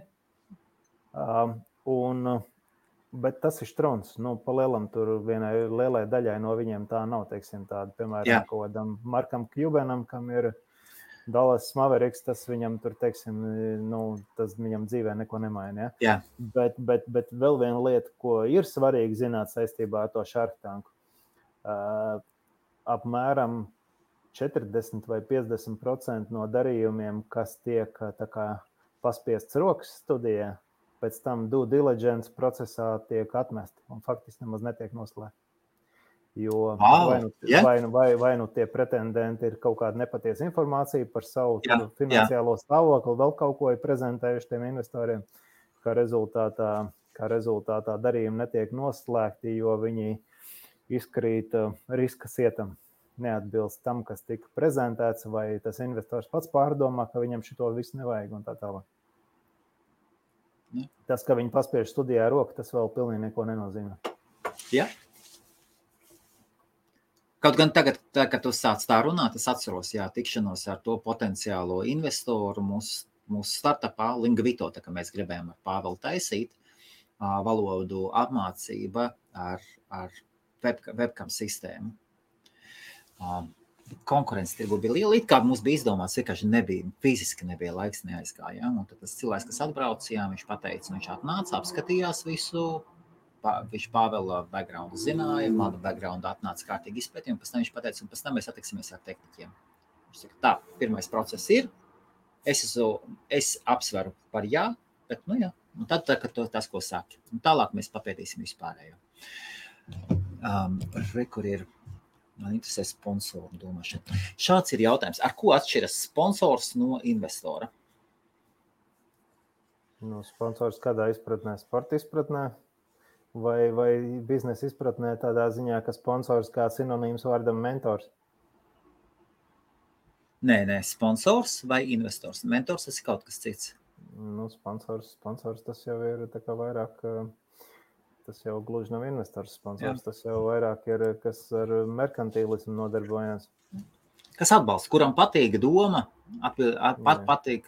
Bet tas ir strons. Pa lielam tur vienai lielai daļai no viņiem tā nav, teiksim, tāda, piemēram, kaut kādam Markam Cubanam, kam ir Dallas Mavericks, tas viņam tur, teiksim, tas viņam dzīvē neko nemaina. Jā. Bet vēl viena lieta, ko ir svarīgi zināt saistībā ar to Shark Tanku, apmēram 40 vai 50% no darījumiem, kas tiek tā kā paspiests rokas studijā, pēc tam due diligence procesā tiek atmesti un faktiski nemaz netiek noslēgti. Jo vai nu tie pretendenti ir kaut kāda nepatiesa informācija par savu finansiālo stāvokli, vēl kaut ko ir prezentējuši tiem investoriem, kā rezultātā darījumi netiek noslēgti, jo viņi izkrīt riska sietam, neatbilst tam, kas tika prezentēts, vai tas investors pats pārdomā, ka viņam šito visu nevajag un tā tālāk. Tas, ka viņi paspiež studijā roku, tas vēl pilnīgi neko nenozīmē. Jā. Kaut gan tagad, kad tu sāc tā runāt, es atceros, tikšanos ar to potenciālo investoru mūsu startupā, Lingvito, tā kā mēs gribējām ar Pāvelu taisīt, valodu apmācība ar webcam sistēmu. Konkurence tirgu bija liela, it kā mums bija izdomāts, vienkārši fiziski nebija laiks, neaizgāja. Un tad tas cilvēks, kas atbrauca, viņš pateica, viņš atnāca, apskatījās visu, viņš Pāvela backgroundu zināja, manu backgroundu atnāca kārtīgi izpētījumi, pēc tam viņš pateica, un pēc tam mēs attiksimies ar tehniķiem. Viņš saka, tā, pirmais process ir, es apsveru par jā, bet un tad tas, ko sāki. Un tālāk mēs papētīsim vispārējo. Kur ir, man interesē sponsoru domāšana. Šāds ir jautājums, ar ko atšķiras sponsors no investora? Sponsors kādā izpratnē, sporta izpratnē? Vai biznesa izpratnē tādā ziņā, ka sponsors kā sinonīms vārdam mentors? Nē, sponsors vai investors. Mentors tas ir kaut kas cits. Sponsors tas jau ir tā kā vairāk, tas jau gluži nav investors sponsors, Tas jau vairāk ir, kas ar merkantīlismu nodarbojas. Kas atbalsta, kuram patīk doma,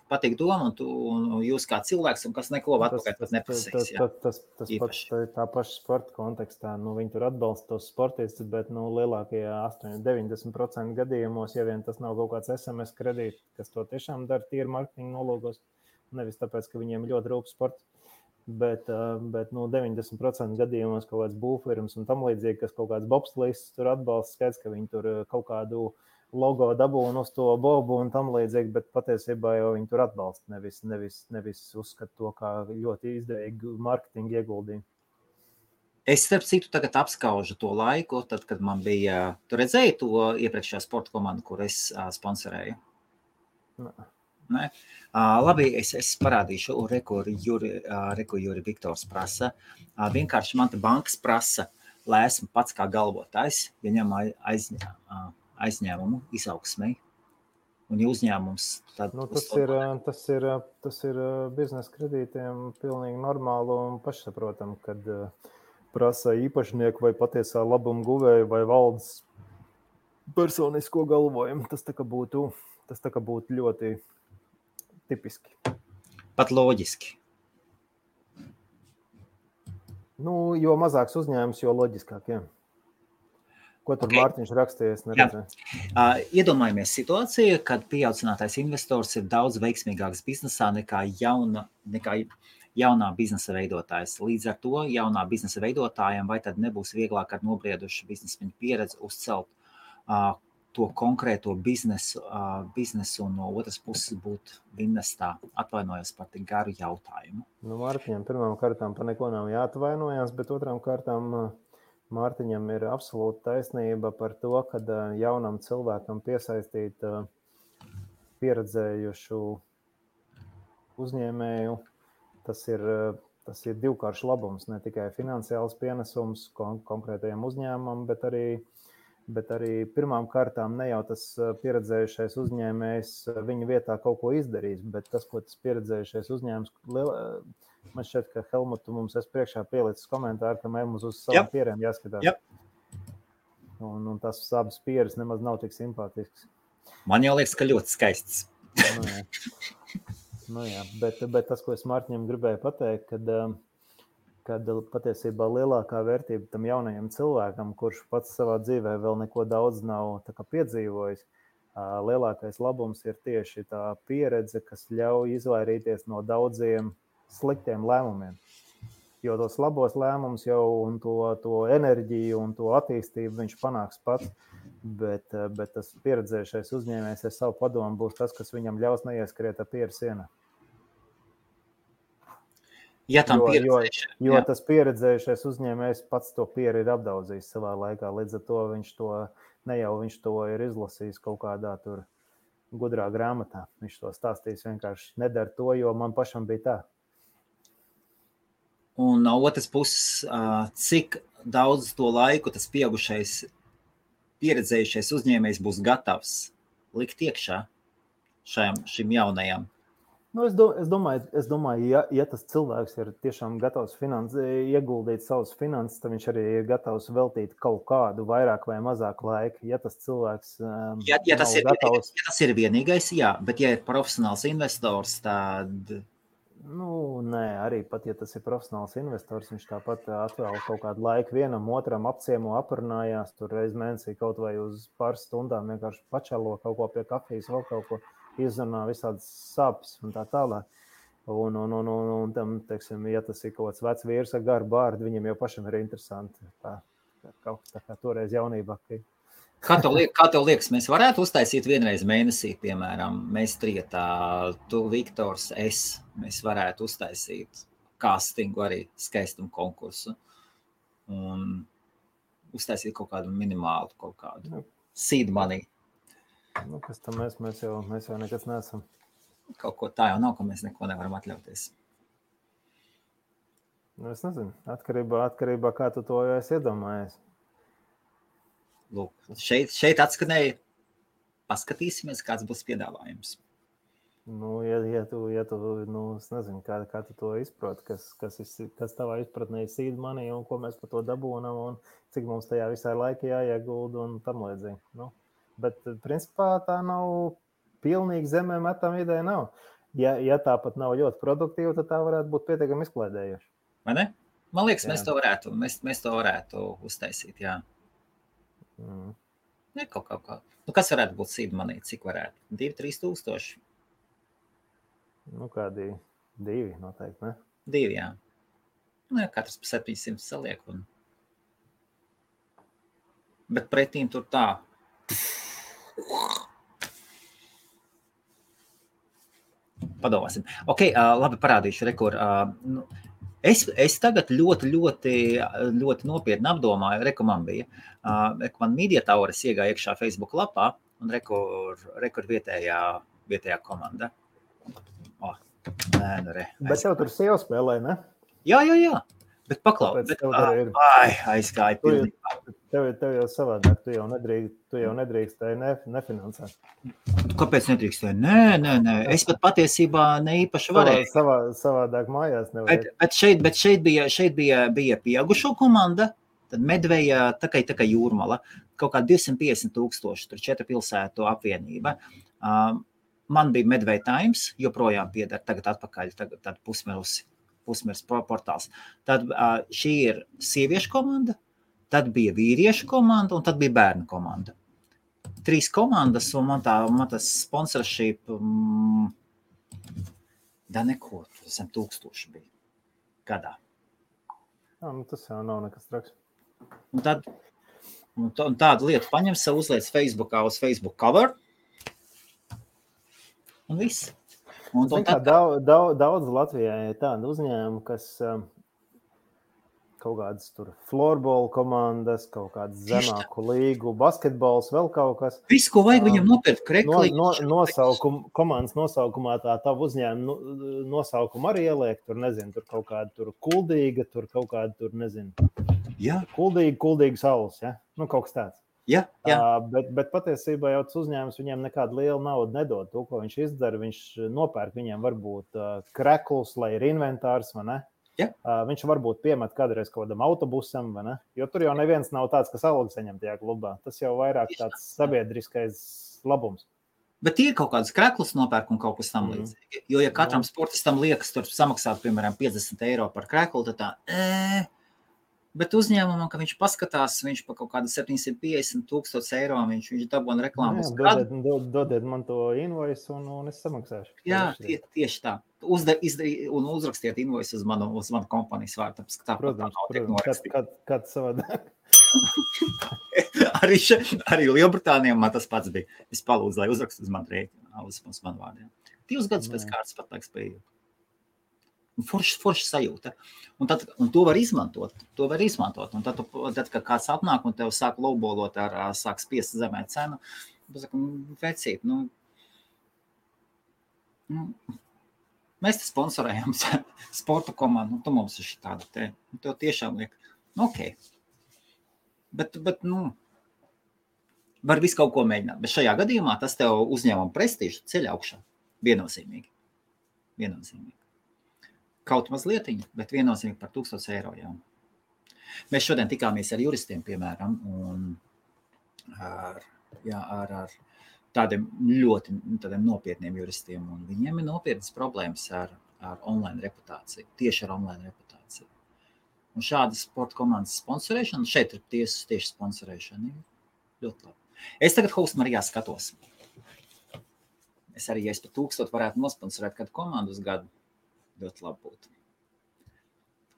patīk doma, un jūs kā cilvēks, un kas neko atpakaļ pat neprasīs. Tas pats tā paša sporta kontekstā. Viņi tur atbalsta tos sportistus, bet lielākajā 80-90% gadījumos, ja vien tas nav kaut kāds SMS kredīts, kas to tiešām dara tīri marketinga nolūkos, nevis tāpēc, ka viņiem ļoti rūp sports. Bet 90% gadījumos kaut kāds būvfirmas un tam līdzīgi, kas kaut kāds bobslīds tur atbalsta, skaidrs, ka viņi tur kaut kādu logo dabūna uz to bobu un tam līdzīgi, bet patiesībā jau viņi tur atbalsta, nevis uzskata to kā ļoti izdevīgu marketingu ieguldījumu. Es starp citu tagad apskaužu to laiku, tad, kad man bija, tu redzēji to iepriekšējā sporta komandu, kur es sponsorēju? Nē. Labi, es parādīšu, Juri Viktors prasa. Vienkārši man te bankas prasa, lai esmu pats kā galvotājs, ja ņem aizņēmumu izaugsmei, un ja uzņēmums tad... Tas ir biznesa kredītiem pilnīgi normāli un pašsaprotam, kad prasa īpašnieku vai patiesā labuma guvēju vai valdes personisko galvojumu. Tas tā kā būtu ļoti tipiski. Pat loģiski. Nu, jo mazāks uzņēmums, jo loģiskāk, jā. Ko tur Mārtiņš rakstīja, es neredzēju. Iedomājamies situāciju, kad pieaudzinātais investors ir daudz veiksmīgāks biznesā nekā jaunā biznesa veidotājs. Līdz ar to jaunā biznesa veidotājiem vai tad nebūs vieglāk ar nobriedušu biznesmeņu pieredzi uzcelt to konkrēto biznesu un no otras puses būt investā. Atvainojos par tik garu jautājumu. Nu, Mārtiņam pirmām kārtām par neko nav jāatvainojas, bet otrām kārtām Mārtiņam ir absolūta taisnība par to, kad jaunam cilvēkam piesaistīt pieredzējušu uzņēmēju, tas ir divkāršs labums, ne tikai finansiāls pienesums konkrētajam uzņēmumam, bet arī pirmām kārtām ne jau tas pieredzējušais uzņēmējs viņa vietā kaut ko izdarīs, bet tas, ko tas pieredzējušais uzņēmums, man šķiet, ka Helmutu mums priekšā pielicis komentāru, ka mums uz savām pierēm jāskatās. Yep. Un tas abas pieres nemaz nav tik simpātisks. Man jau liekas, ka ļoti skaists. Nu jā, bet tas, ko es Mārtiņam gribēju pateikt, kad patiesībā lielākā vērtība tam jaunajam cilvēkam, kurš pats savā dzīvē vēl neko daudz nav tā kā piedzīvojis, lielākais labums ir tieši tā pieredze, kas ļauj izvairīties no daudziem sliktiem lēmumiem. Jo tos labos lēmumus jau un to enerģiju un to attīstību viņš panāks pats, bet tas pieredzējušais uzņēmējs ar savu padomu būs tas, kas viņam ļaus neieskriet ar pieru sienā. Ja jo tas pieredzējušais uzņēmējs pats to pieru ir apdaudzījis savā laikā, līdz ar to viņš to ir izlasījis kaut kādā tur gudrā grāmatā. Viņš to stāstījis vienkārši nedara to, jo man pašam bija tā. Un no otras puses, cik daudz to laiku tas pieaugušais, pieredzējušais uzņēmējs būs gatavs likt iekšā šim jaunajam? Nu, es domāju, ja tas cilvēks ir tiešām gatavs ieguldīt savus finanses, tad viņš arī ir gatavs veltīt kaut kādu vairāk vai mazāk laika. Ja tas cilvēks ja tas ir vienīgais, jā, bet ja ir profesionāls investors, tad... Nu, nē, arī pat, ja tas ir profesionāls investors, viņš tāpat atvēl kaut kādu laiku vienam, otram apciemo, aprunājās, tur reiz mēnesī kaut vai uz pāris stundām vienkārši pačalo kaut ko pie kafijas, vēl kaut ko izrunā visādas sāpes un tā tālāk. Un tam, teiksim, ja tas ir kaut kāds vecs vīrs ar garu bārdu, viņam jau pašam ir interesanti. Tā kā toreiz jaunībā. Kā tev liekas, mēs varētu uztaisīt vienreiz mēnesī, piemēram, mēs trietā, tu, Viktors, mēs varētu uztaisīt castingu arī skaistumu konkursu un uztaisīt kaut kādu minimālu, kaut kādu seed money. Nu, kas tam mēs jau nekas neesam. Kaut ko tā jau nav, ka mēs neko nevaram atļauties. Nu, es nezinu, atkarībā kā tu to jau esi iedomājies. Lūk, šeit atskanēja, paskatīsimies, kāds būs piedāvājums. Nu, ja tu es nezinu, kā tu to izproti, kas tavā izpratnē ir seed money un ko mēs par to dabūnam un cik mums tajā visai laika jāiegulda un tam līdzīgi. Nu, bet, principā, tā nav pilnīgi zemē metam ideja nav. Ja tā pat nav ļoti produktīva, tad tā varētu būt pietiekami izklaidējoša. Vai ne? Man liekas, mēs to varētu uztaisīt, jā. Ne, kaut kā. Nu, kas varētu būt seed money? Cik varētu? 2-3 tūkstoši? Nu, kādi 2 noteikti, ne? 2, jā. Nu, jā, katrs pa 700 saliek. Bet pretīm tur tā. Padomāsim. Ok, labi, parādīšu rekur. Es tagad ļoti nopietni apdomāju, man bija. Man Media Towers iegāja iekšā Facebook lapā un rekur vietējā komanda. Bet tev tur sieva spēlē, ne? Jā. Bet paklau, aizgāja pilnībā. Tev jau savādāk, tu jau nedrīkstēji nefinansēt. Kāpēc nedrīkstēji? Nē. Es pat patiesībā ne īpaši varēju. Savādāk mājās nevajag. Bet šeit bija pieaugušo komanda, tad Medveja, tā kā Jūrmala, kaut kā 250,000, tur 4 pilsētu apvienība. Man bija Medveja Times, joprojām pieder tagad atpakaļ, tad pusmirs portāls. Tad šī ir sieviešu komanda, tad bija vīriešu komanda un tad bija bērnu komanda. 3 komandas un man tas sponsorship neko, zem 1000 bija gadā. Tas jau nav nekas traks. Un tādu lietu paņem sev, uzliec Facebookā uz Facebook cover un viss. Daudz Latvijā ir tāda uzņēmuma, kas kaut kādas tur floorball komandas, kaut kādas zemāku līgu, basketbols, vēl kaut kas. Viss, ko vajag viņam nopirkt, krekli. Komandas nosaukumā tā tavu uzņēmumu nosaukumu arī ieliek, tur nezinu, tur kaut kāda tur kuldīga, tur kaut kāda tur nezinu. Jā. Kuldīga saules, ja? Kaut kas tāds. Jā. Bet patiesībā jau tas uzņēmums viņiem nekādu lielu naudu nedod. To, ko viņš izdara, viņš nopērk viņiem varbūt kreklus, lai ir inventārs, vai ne? Jā. Viņš varbūt piemet kādreiz kaut kādam autobusam, vai ne? Jo tur jau neviens nav tāds, kas algu saņem tajā klubā. Tas jau vairāk tāds sabiedriskais labums. Bet ir kaut kādas kreklas nopērk un kaut kas tam līdzīgi. Jo, ja katram sportistam liekas tur samaksāt, piemēram, 50 eiro par kreklu, tad tā... Bet uzņēmumam, ka viņš paskatās, viņš pa kaut kādu 750,000 eiro, viņš dabūna reklāmas. Dodiet man to invoice un es samaksāšu. Jā, tieši tā. Un uzrakstiet invoice uz manu kompanijas vārdu. Protams, kad savādāk. Arī Lielbritānijā man tas pats bija. Es palūdzu, lai uzrakstu uz manu rēķinu, uz manu vārdu. 2 gadus pēc kārtas pat laiks bija. Forša sajūta. Un to var izmantot. Un tad, kad kāds atnāk un tev sāk lowballot sāk spiest zemē cenu, vecīt, mēs te sponsorējam sporta komandu, tu mums ir šitāda te. Tev tiešām liek, ok. Bet var visu kaut ko mēģināt. Bet šajā gadījumā tas tev uzņēmuma prestīžu ceļ augšā. Viennozīmīgi. Kaut mazlietiņi, bet viennozīmīgi par 1000 eiro jau. Mēs šodien tikāmies ar juristiem, piemēram, un ar tādiem ļoti nopietniem juristiem, un viņiem ir nopietnas problēmas ar online reputāciju, tieši ar online reputāciju. Un šāda sporta komandas sponsorēšana, šeit ir tieši sponsorēšana, ļoti labi. Es tagad Host Marijā skatos. Es arī, ja es par 1000 varētu nosponsorēt kādu komandu uz gadu, ļoti labi būtu.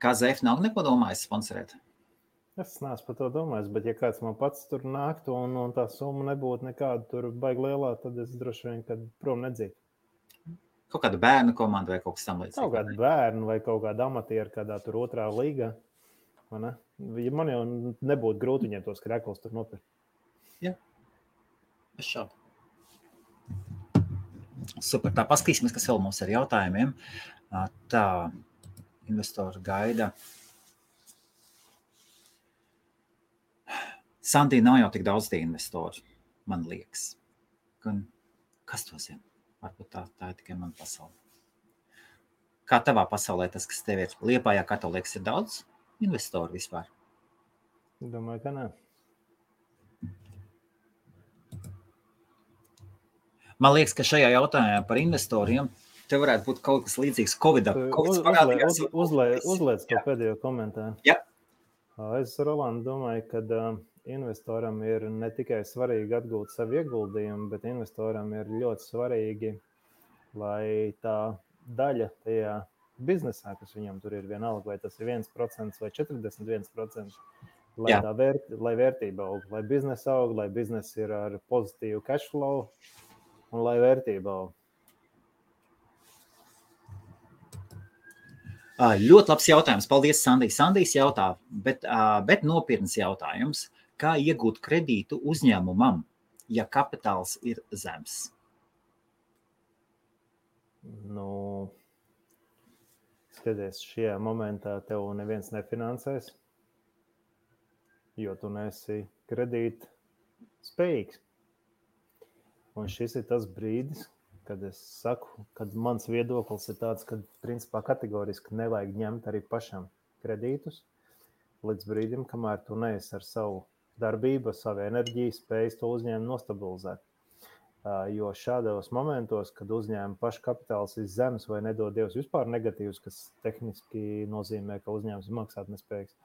KZF nav neko domājis sponsorēt? Es neesmu par to domājis, bet ja kāds man pats tur nāktu un tā summa nebūtu nekāda tur baigi lielā, tad es droši vien, kad prom nedzītu. Kaut kāda bērnu komanda vai kaut kas tam līdzīgs? Kaut kāda bērnu vai kaut kāda amatiera kādā tur 2. līgā. Man jau nebūtu grūti viņiem tos krekls tur nopirkt. Jā, es šādu. Super, tā paskatīsimies, kas vēl mums ar jautājumiem. Tā, investori gaida. Sandī nav jau tik daudz tie investori, man liekas. Kas to zina? Varbūt tā ir tikai mana pasaule. Kā tavā pasaulē tas, kas tev ir Liepājā, kā tev liekas, ir daudz investoru vispār? Domāju, ka nē. Man liekas, ka šajā jautājumā par investoriem te varētu būt kaut kas līdzīgs Covidā. Uzliec to pēdējo komentāru. Jā. Es, Roland, domāju, ka investoram ir ne tikai svarīgi atgūt savu ieguldījumu, bet investoram ir ļoti svarīgi, lai tā daļa tajā biznesā, kas viņam tur ir vienalga, vai tas ir 1% vai 41%, lai vērtība aug, lai biznesa aug, lai biznesa ir ar pozitīvu cash flow un lai vērtība aug. Ļoti labs jautājums. Paldies, Sandī. Sandijs jautā, bet nopietns jautājums. Kā iegūt kredītu uzņēmumam, ja kapitāls ir zems? skaties, šajā momentā tev neviens nefinansēs, jo tu neesi kredīt spējīgs. Un šis ir tas brīdis, kad es saku, kad mans viedoklis ir tāds, ka principā kategoriski nevajag ņemt arī pašam kredītus līdz brīdim, kamēr tu neesi ar savu darbību, savu enerģiju, spējas to uzņēmumu nostabilizēt. Jo šādos momentos, kad uzņēmuma paškapitāls ir zemes vai nedod Dievs vispār negatīvs, kas tehniski nozīmē, ka uzņēmums ir maksātnespējīgs,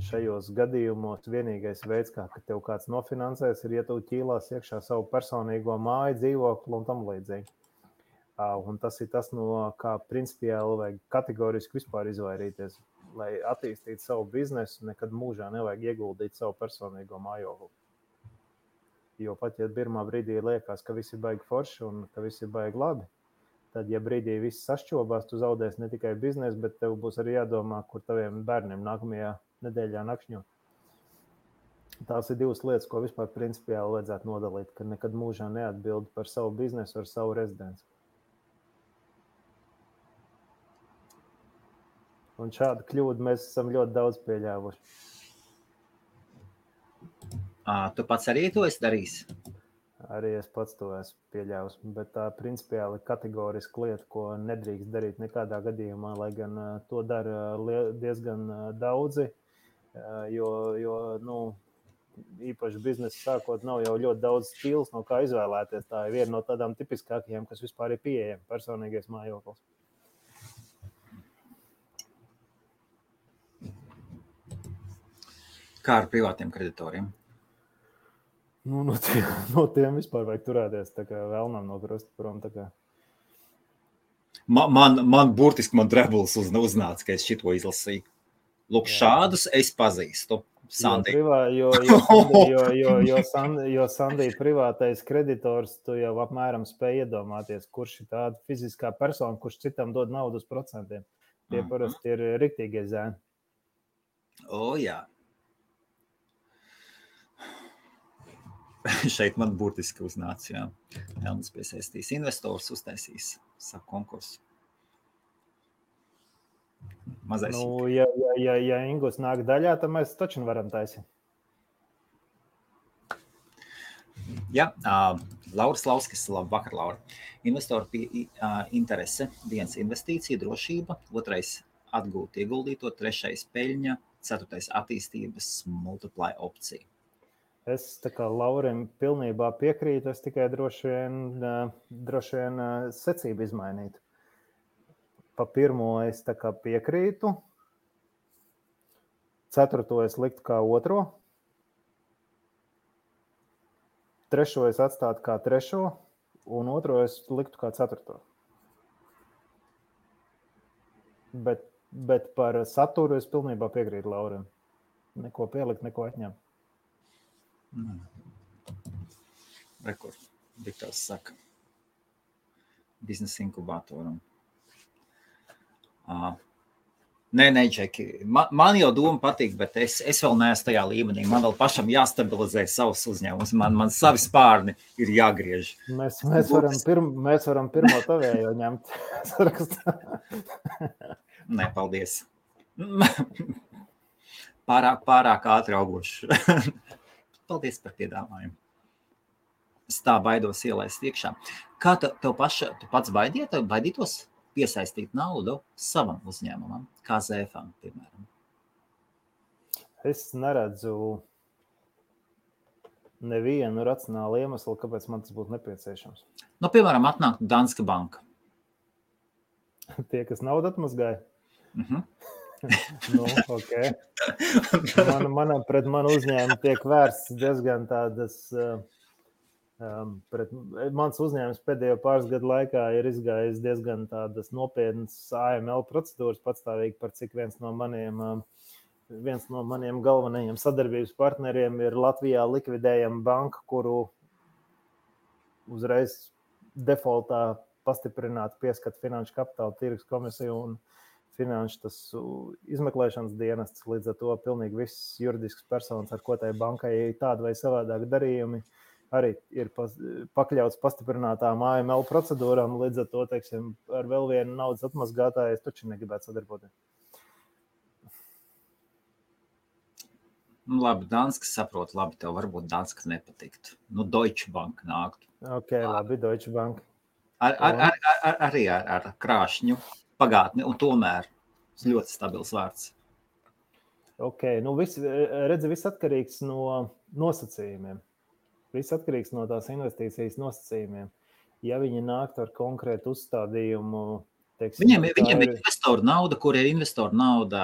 šajos gadījumos vienīgais veids, kā tev kāds nofinansēs, ir, ja tu ķīlās iekšā savu personīgo māju, dzīvokli un tam līdzīgi. Un tas ir tas, no kā principiāli vajag kategoriski vispār izvairīties. Lai attīstītu savu biznesu, nekad mūžā nevajag ieguldīt savu personīgo mājokli. Jo pat, ja pirmā brīdī liekas, ka viss ir baigi forši un ka viss ir baigi labi, tad, ja brīdī viss sašķobās, tu zaudēsi ne tikai biznesu, bet tev būs arī jādomā, kur taviem bērniem nākamajā nedēļā nakšņo. Tās ir divas lietas, ko vispār principiāli vajadzētu nodalīt, ka nekad mūžā neatbild par savu biznesu ar savu rezidenci. Un šādu kļūdu mēs esam ļoti daudz pieļāvuši. Tu pats arī to esi darījis? Arī es pats to esmu pieļāvis, bet tā principiāli kategoriska lieta, ko nedrīkst darīt nekādā gadījumā, lai gan to dara diezgan daudzi, jo īpaši biznesa sākot nav jau ļoti daudz stils, no kā izvēlēties. Tā ir viena no tādām tipiskākajām, kas vispār ir pieejama, personīgais mājoklis. Kā ar privātiem kreditoriem? No tiem vispār vajag turēties tā kā vēlnam no krusta prom. Man burtiski drebulis uznāca, ka es šito izlasīju. Lūk, šādus es pazīstu. Sandi. Jo Sandī privātais kreditors, tu jau apmēram spēj iedomāties, kurš ir tāda fiziskā persona, kurš citam dod naudu uz procentiem. Tie parasti ir riktīgie zēni. Jā. Šeit man burtiski uznāca, jā. Elnis piesaistīs investors, uztaisīs savu konkursu. Mazais. Ja Ingus nāk daļā, tad mēs taču varam taisīt. Jā, Lauris Lauskis, labvakar, Laura. Investoru interese, 1 investīcija, drošība, 2 atgūt ieguldīto, 3 peļņa, 4 attīstības multiply opcija. Es tā kā Laurim pilnībā piekrītu, es tikai droši vien secību izmainītu. Pa pirmo es tā kā piekrītu, 4. es liktu kā 2. 3. es atstātu kā 3. un 2. es liktu kā 4. Bet par saturu es pilnībā piekrītu Laurim. Neko pielikt, neko atņemt. Rekord, Viktors saka, biznesa inkubatoram. Nē, Džeki, man jau doma patīk, bet es vēl neesmu tajā līmenī. Man vēl pašam jāstabilizē savus uzņēmumus. Man savi spārni ir jāgriež. Mēs varam pirmo tavējo ņemt. Nē, paldies. Pārāk ātri augoši. Paldies par piedāvājumu. Es tā baidos ielaist iekšā. Kā tu pats baidītos piesaistīt naudu savam uzņēmumam, kā ZFam, piemēram? Es neredzu nevienu racionālu iemeslu, kāpēc man tas būtu nepieciešams. Piemēram, atnāk Danske Banka. Tie, kas naudu atmazgāja? Okay. Pret manu uzņēmumu tiek vērsts diezgan tādas, mans uzņēmums pēdējo pāris gadu laikā ir izgājis diezgan tādas nopietnas AML procedūras patstāvīgi, par cik viens no maniem galvenajiem sadarbības partneriem ir Latvijā likvidējama banka, kuru uzreiz defaultā pastiprināti pieskat Finanšu kapitāla tirgus komisiju un finanšu tas izmeklēšanas dienests, līdz ar to pilnīgi viss juridisks personas, ar ko tai bankai ir tāda vai savādāk darījumi, arī ir pakļauts pastiprinātām AML procedūrām, līdz ar to, teiksim, ar vēl vienu naudas atmazgātāju es taču negribētu sadarboties. Labi, Danskas saprot, labi, tev varbūt Danskas nepatiktu. Deutsche Bank nāktu. Ok, labi, Deutsche Bank. Arī ar krāšņu pagātni, un tomēr ļoti stabils vārds. Ok, viss atkarīgs no nosacījumiem. Viss atkarīgs no tās investīcijas nosacījumiem. Ja viņi nāktu ar konkrētu uzstādījumu, teiksim, Viņiem ir investoru nauda, kur ir investoru nauda.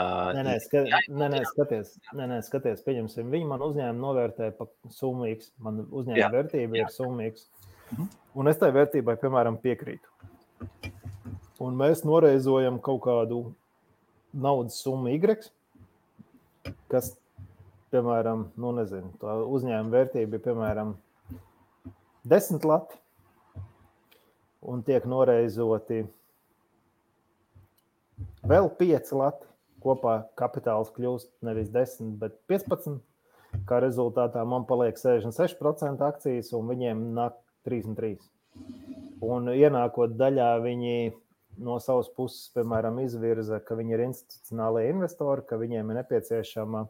Skaties, pieņemsim, viņi man uzņēmumu novērtē pa summu X, man uzņēmuma vērtība ir summa X. Un es tai vērtībai, piemēram, piekrītu. Un mēs noreizojam kaut kādu naudas summu Y, kas, piemēram, tā uzņēmuma vērtība ir, piemēram, 10 lati, un tiek noreizoti vēl 5 lati. Kopā kapitāls kļūst nevis 10, bet 15. Kā rezultātā man paliek 66% akcijas, un viņiem nāk 33. Un ienākot daļā, viņi no savas puses, piemēram, izvirza, ka viņi ir institucionālie investori, ka viņiem ir nepieciešama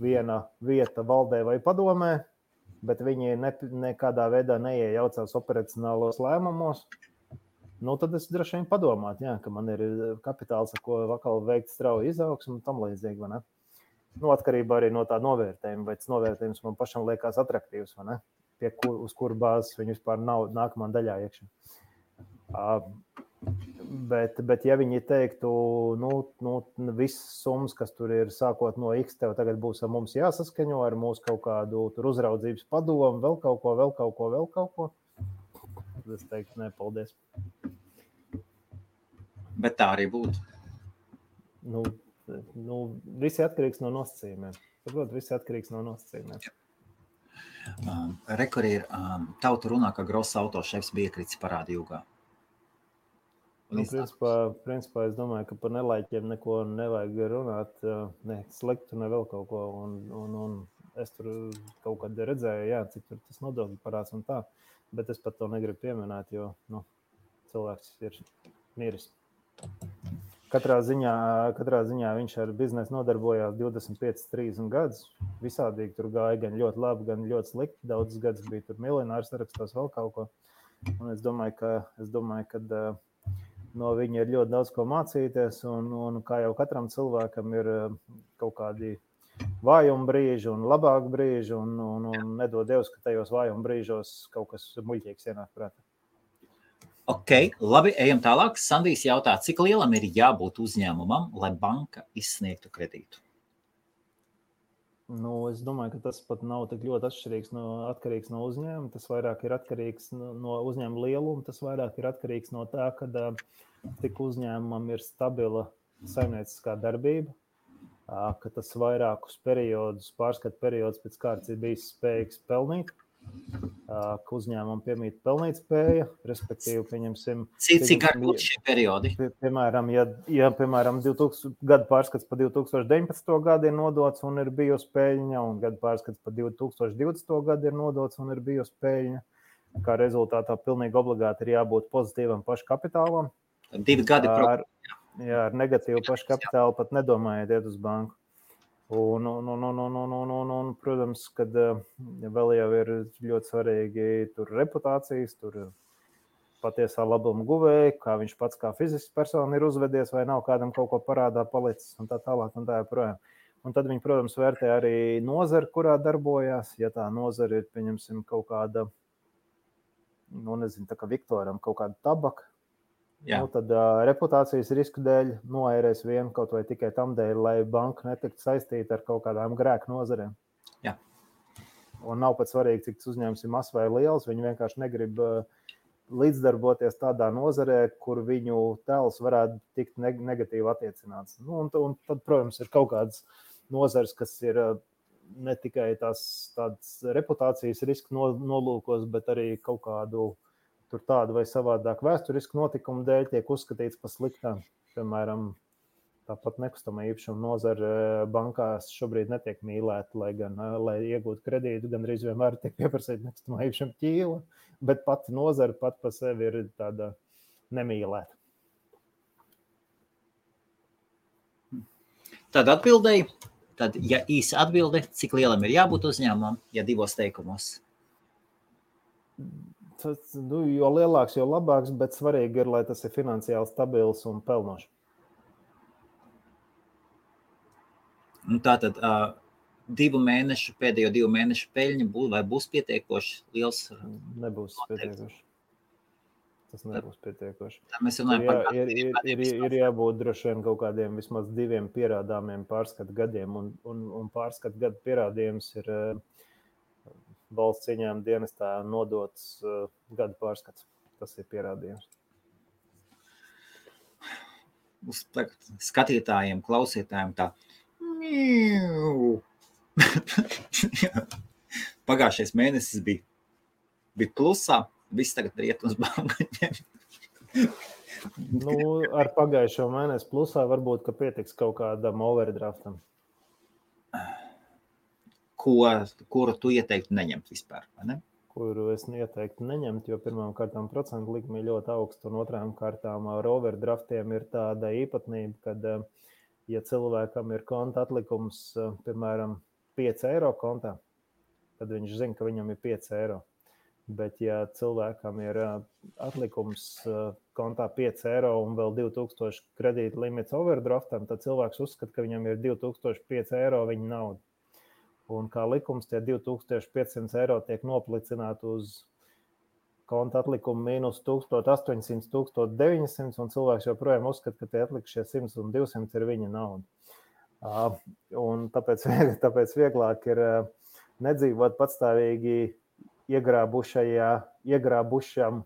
viena vieta valdē vai padomē, bet viņi nekādā veidā neiejaucās operacionālos lēmumos. Tad es droši vien padomātu, ka man ir kapitāls, ar ko vakal veikt strauju izaugsmu un tam līdzīgi, vai ne? Atkarībā arī no tā novērtējuma, vai tas novērtējums man pašam liekas atraktīvs, vai ne? Uz kuru bāzes viņi vispār nav nākamā daļā iekšā. Bet ja viņi teiktu, visas summas, kas tur ir sākot no X, tev tagad būs ar mums jāsaskaņo ar mūsu kaut kādu tur uzraudzības padomu, vēl kaut ko. Es teiktu, nē, paldies. Bet tā arī būtu. Visi atkarīgs no nosacījumiem. Saprot, visi atkarīgs no nosacījumiem. Rekur ir tauta runā, ka Gross autošefs bija kritis parāda jūgā. Principā es domāju, ka par nelaiķiem neko nevajag runāt, ne sliktu, ne vēl kaut ko. Un es tur kaut kad redzēju, cik tur tas nodokļu parāds un tā. Bet es pat to negribu pieminēt, jo cilvēks ir miris. Katrā ziņā viņš ar biznesu nodarbojās 25-30 gadus. Visādīgi tur gāja gan ļoti labi, gan ļoti slikti. Daudzus gadus bija tur miljonārs sarakstos vēl kaut ko. Un es domāju, ka no viņa ir ļoti daudz ko mācīties. Un kā jau katram cilvēkam ir kaut kādi vājuma brīži un labāk brīži. Un nedod Dievs, ka tajos vājuma brīžos kaut kas muļķīgs ienāk prātā. Ok, labi, ejam tālāk. Sandijs jautā, cik lielam ir jābūt uzņēmumam, lai banka izsniegtu kredītu? Es domāju, ka tas pat nav tik ļoti atkarīgs no uzņēmuma. Tas vairāk ir atkarīgs no uzņēmuma lieluma. Tas vairāk ir atkarīgs no tā, ka tik uzņēmumam ir stabila saimnieciskā darbība, ka tas vairākus periodus, pārskatu periodus pēc kārtas ir bijis spējīgs pelnīt. Ka uzņēmumam piemīt pelnīt spēja, respektīvi, pieņemsim... Cik gari būtu šie periodi? Piemēram, ja piemēram, 2000 gadu pārskats par 2019. gadu ir nodots un ir bijusi peļņa, un gadu pārskats par 2020. gadu ir nodots un ir bijusi peļņa, kā rezultātā pilnīgi obligāti ir jābūt pozitīvam paškapitālam. 2 gadi ar negatīvu paškapitālu pat nedomājiet iet uz banku. Un, protams, kad vēl jau ir ļoti svarīgi tur reputācijas, tur patiesā labuma guvēja, kā viņš pats kā fizisks persona ir uzvedies, vai nav kādam kaut ko parādā palicis un tā tālāk un tā joprojām. Un tad viņi, protams, vērtē arī nozari, kurā darbojās. Ja tā nozara ir, pieņemsim, kaut kāda, tā kā Viktoram, kaut kāda tabaka, tad reputācijas risku dēļ noērēs vienu kaut vai tikai tam dēļ, lai banka netiktu saistīta ar kaut kādām grēku nozarēm. Jā. Un nav pat svarīgi, cik tas uzņēmums ir mazs vai liels. Viņi vienkārši negrib līdzdarboties tādā nozarē, kur viņu tēls varētu tikt negatīvi attiecināts. Un tad, protams, ir kaut kādas nozares, kas ir ne tikai tādas reputācijas risku nolūkos, bet arī kaut kādu tur tādu vai savādāk vēsturisku notikumu dēļ tiek uzskatīts par sliktām. Piemēram, Tāpat nekustamā īpašuma nozare bankās šobrīd netiek mīlēta, lai gan, lai iegūtu kredītu, gandrīz vienmēr tiek pieprasīta nekustamā īpašuma ķīla, bet pati nozare pat pa sevi ir tāda nemīlēta. Tad atbildēji, tad, ja īsa atbilde, cik lielam ir jābūt uzņēmumam, ja 2 teikumos? Jo lielāks, jo labāks, bet svarīgi ir, lai tas ir finansiāli stabils un pelnošs. Tātad pēdējo 2 mēnešu peļņa būs pietiekoši liels? Nebūs pietiekoši. Tas nebūs pietiekoši. Mēs runājam par ir jābūt droši vien kaut kādiem vismaz 2 pierādāmiem pārskatu gadiem, un pārskatu gadu pierādījums ir valsts ieņēmuma dienestā nodots gadu pārskats. Tas ir pierādījums. Uz skatītājiem, klausītājiem tā. Pagājušais mēnesis bija plusā, viss tagad riet uz bankaņiem. Ar pagājušo mēnesi plusā varbūt, ka pietiks kaut kādam overdraftam. Kuru tu ieteiktu neņemt vispār, vai ne? Kuru es ieteiktu neņemt, jo pirmām kārtām procentu likme ļoti augsta, un otrām kārtām ar overdraftiem ir tāda īpatnība, kad ja cilvēkam ir konta atlikums, piemēram, 5 eiro kontā, tad viņš zina, ka viņam ir 5 eiro. Bet ja cilvēkam ir atlikums kontā 5 eiro un vēl 2000 kredīta limits overdraftam, tad cilvēks uzskata, ka viņam ir 2005 eiro viņa nauda. Un kā likums, tie 2500 eiro tiek noplicināti uz konta atlikumu mīnus 1800, 1900, un cilvēks joprojām uzskata, ka tie atlikušie 100 un 200 ir viņa nauda. Un tāpēc vieglāk ir nedzīvot patstāvīgi iegrābušam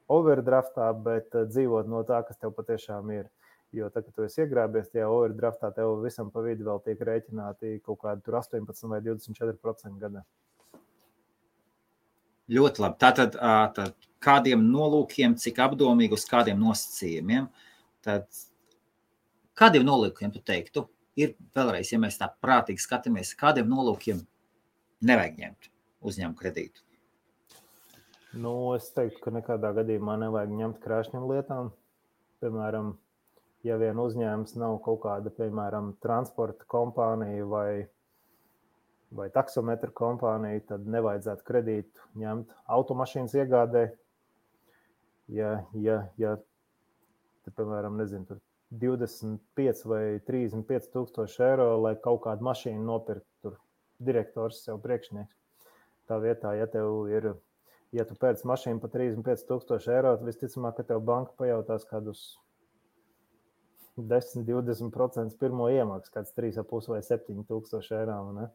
overdraftā, bet dzīvot no tā, kas tev patiešām ir. Jo tad, kad tu esi iegrābies tajā overdraftā, tev visam pa vidu vēl tiek rēķināti kaut kādi tur 18 vai 24% gadā. Ļoti labi. Tātad kādiem nolūkiem, cik apdomīgi uz kādiem nosacījumiem, tad kādiem nolūkiem tu teiktu? Ir vēlreiz, ja mēs tā prātīgi skatāmies, kādiem nolūkiem nevajag ņemt uzņēmumu kredītu? Es teiktu, ka nekādā gadījumā nevajag ņemt krāšņiem lietām. Piemēram, ja vien uzņēmums nav kaut kāda, piemēram, transporta kompānija vai taksometra kompānija, tad nevajadzētu kredītu ņemt automašīnas iegādē. Ja piemēram, nezinu, 25 vai 35 tūkstoši eiro, lai kaut kādu mašīnu nopirkt, tur direktors sev priekšnieks. Tā vietā, ja tu pērc mašīnu pa 35 tūkstoši eiro, tad visticamāk, ka tev banka pajautās kādus 10-20% pirmo iemaksu, kāds 3,5 vai 7 tūkstoši eiro. Ne?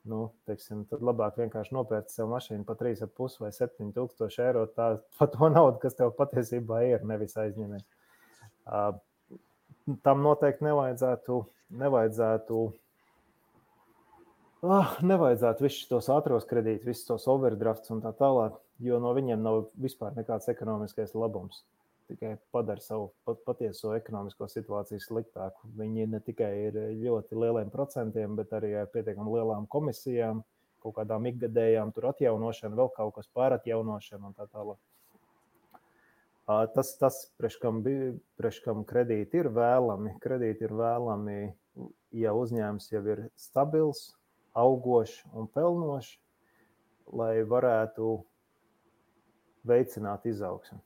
Tad labāk vienkārši nopērci sev mašīnu pa 3,5 vai 7 tūkstoši eiro, pa to naudu, kas tev patiesībā ir, nevis aizņemies. Tam noteikti nevajadzētu visus tos ātros kredītus, visus tos overdrafts un tā tālāk, jo no viņiem nav vispār nekāds ekonomiskais labums. Tikai padara savu patieso ekonomisko situāciju sliktāku. Viņi ne tikai ir ļoti lieliem procentiem, bet arī ar pietiekami lielām komisijām, kaut kādām ikgadējām tur atjaunošanu, vēl kaut kas pāratjaunošanu un tā tālāk. Tas priekškam kredīti ir vēlami. Kredīti ir vēlami, ja uzņēmums jau ir stabils, augošs un pelnošs, lai varētu veicināt izaugsmi.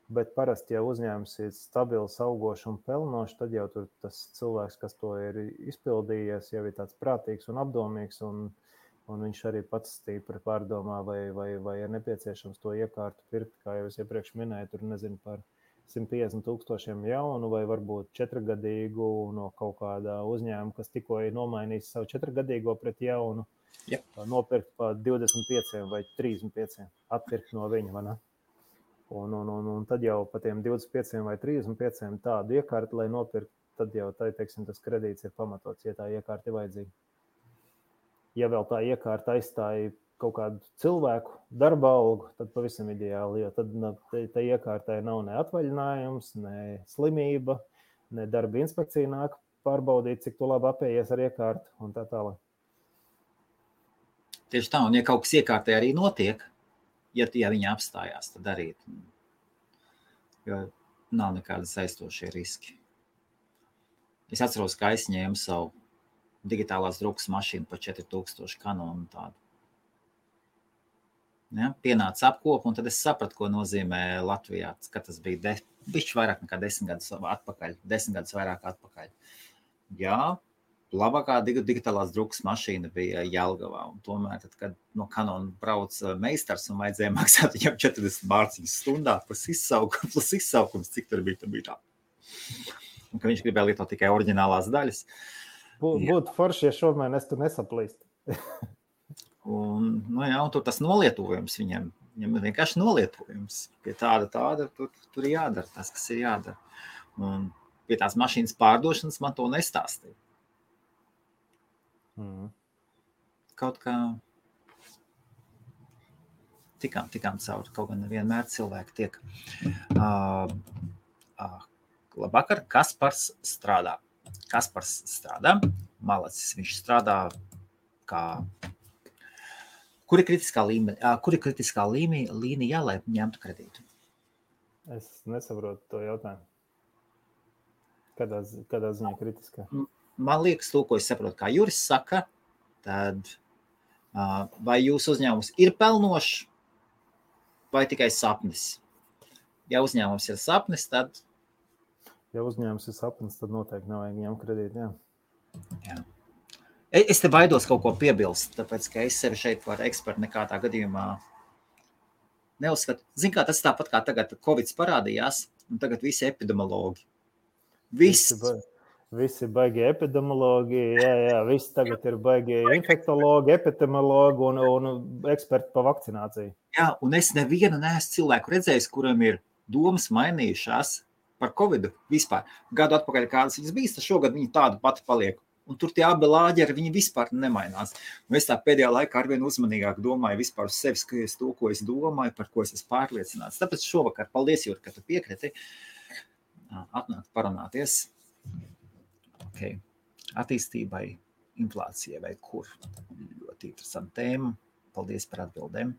Bet parasti, ja uzņēmums ir stabils, augošs un pelnošs, tad jau tur tas cilvēks, kas to ir izpildījies, jau ir tāds prātīgs un apdomīgs, un viņš arī pats stīpri pārdomā, vai ir nepieciešams to iekārtu pirkt, kā jau es iepriekš minēju, tur nezinu par 150 000 jaunu, vai varbūt 4-gadīgu no kaut kādā uzņēmuma, kas tikko ir nomainījis savu 4-gadīgo pret jaunu, nopirkt pa 25 vai 35, atpirkt no viņa, vai ne? Un tad jau pa tiem 25 vai 35 tādu iekārtu, lai nopirkt, tad jau tas kredīts ir pamatots, ja tā iekārta ir vajadzīga. Ja vēl tā iekārta aizstāja kaut kādu cilvēku darba algu, tad pavisam ideāli, jo tad tā iekārtai nav ne atvaļinājums, ne slimība, ne darba inspekcija nāk pārbaudīt, cik tu labi apējies ar iekārtu un tā tālāk. Tieši tā, un ja kaut kas iekārtē arī notiek, ja viņi apstājās, tad darīt. Jo nav nekāda saistošie riski. Es atceros, ka aizņēmu savu digitālās drukas mašīnu par 4000 kanonu tādu. Ja, pienāca apkopa, un tad es sapratu, ko nozīmē Latvijā, ka tas bija bišķi vairāk nekā 10 gadus atpakaļ, 10 gadus vairāk atpakaļ. Jā, labākā digitālās drukas mašīna bija Jelgavā, un tomēr, tad, kad no Kanona brauc meistars un vajadzēja maksāt viņam 40 mārciņas stundā plus izsaukums, cik tur bija tā. Un ka viņš gribēja lietot tikai oriģinālās daļas. Būtu forši, ja šomēr es tu nesaplīst. Un tur tas nolietojums viņam vienkārši nolietojums. Pie tāda tur ir jādara tas, kas ir jādara. Un pie tās mašīnas pārdošanas man to nestāstīja. Kaut kā tikām cauri, kaut gan nevienmēr cilvēki tiek. Labvakar, Kaspars strādā. Malacis, viņš strādā kā... Kur ir kritiskā līnija, lai ņemtu kredītu? Es nesaprotu to jautājumu. Kādā ziņā kritiskā? Man liekas, to, ko es saprotu, kā Juris saka, tad vai jūsu uzņēmums ir pelnošs vai tikai sapnis? Ja uzņēmums ir sapnis, tad... Ja uzņēmums ir sapnis, tad noteikti nevajag ņemt kredītu, jā. Es te baidos kaut ko piebilst, tāpēc, ka es sevi šeit par ekspertu nekādā gadījumā neuzskatu. Zin kā, tas tāpat kā tagad Covid parādījās, un tagad visi epidemiologi. Visi baigi epidemiologi, jā, visi tagad ir baigi infektologi, epidemiologi un eksperti pa vakcināciju. Jā, un es nevienu neesmu cilvēku redzējis, kuram ir domas mainījušās par Covidu vispār. Gadu atpakaļ kādas viņas bijis, tad šogad viņi tādu pati paliek. Un tur tie abi lāģeri, viņi vispār nemainās. Un es tā pēdējā laikā arvien uzmanīgāk domāju vispār uz sevis, ka es to, ko es domāju, par ko es esmu pārliecināts. Tāpēc šovakar, paldies, Jūri, ka tu piekriti atnākt parunāties. Okay. Attīstībai, inflācijai vai kur. Ļoti interesanta tēma. Paldies par atbildēm.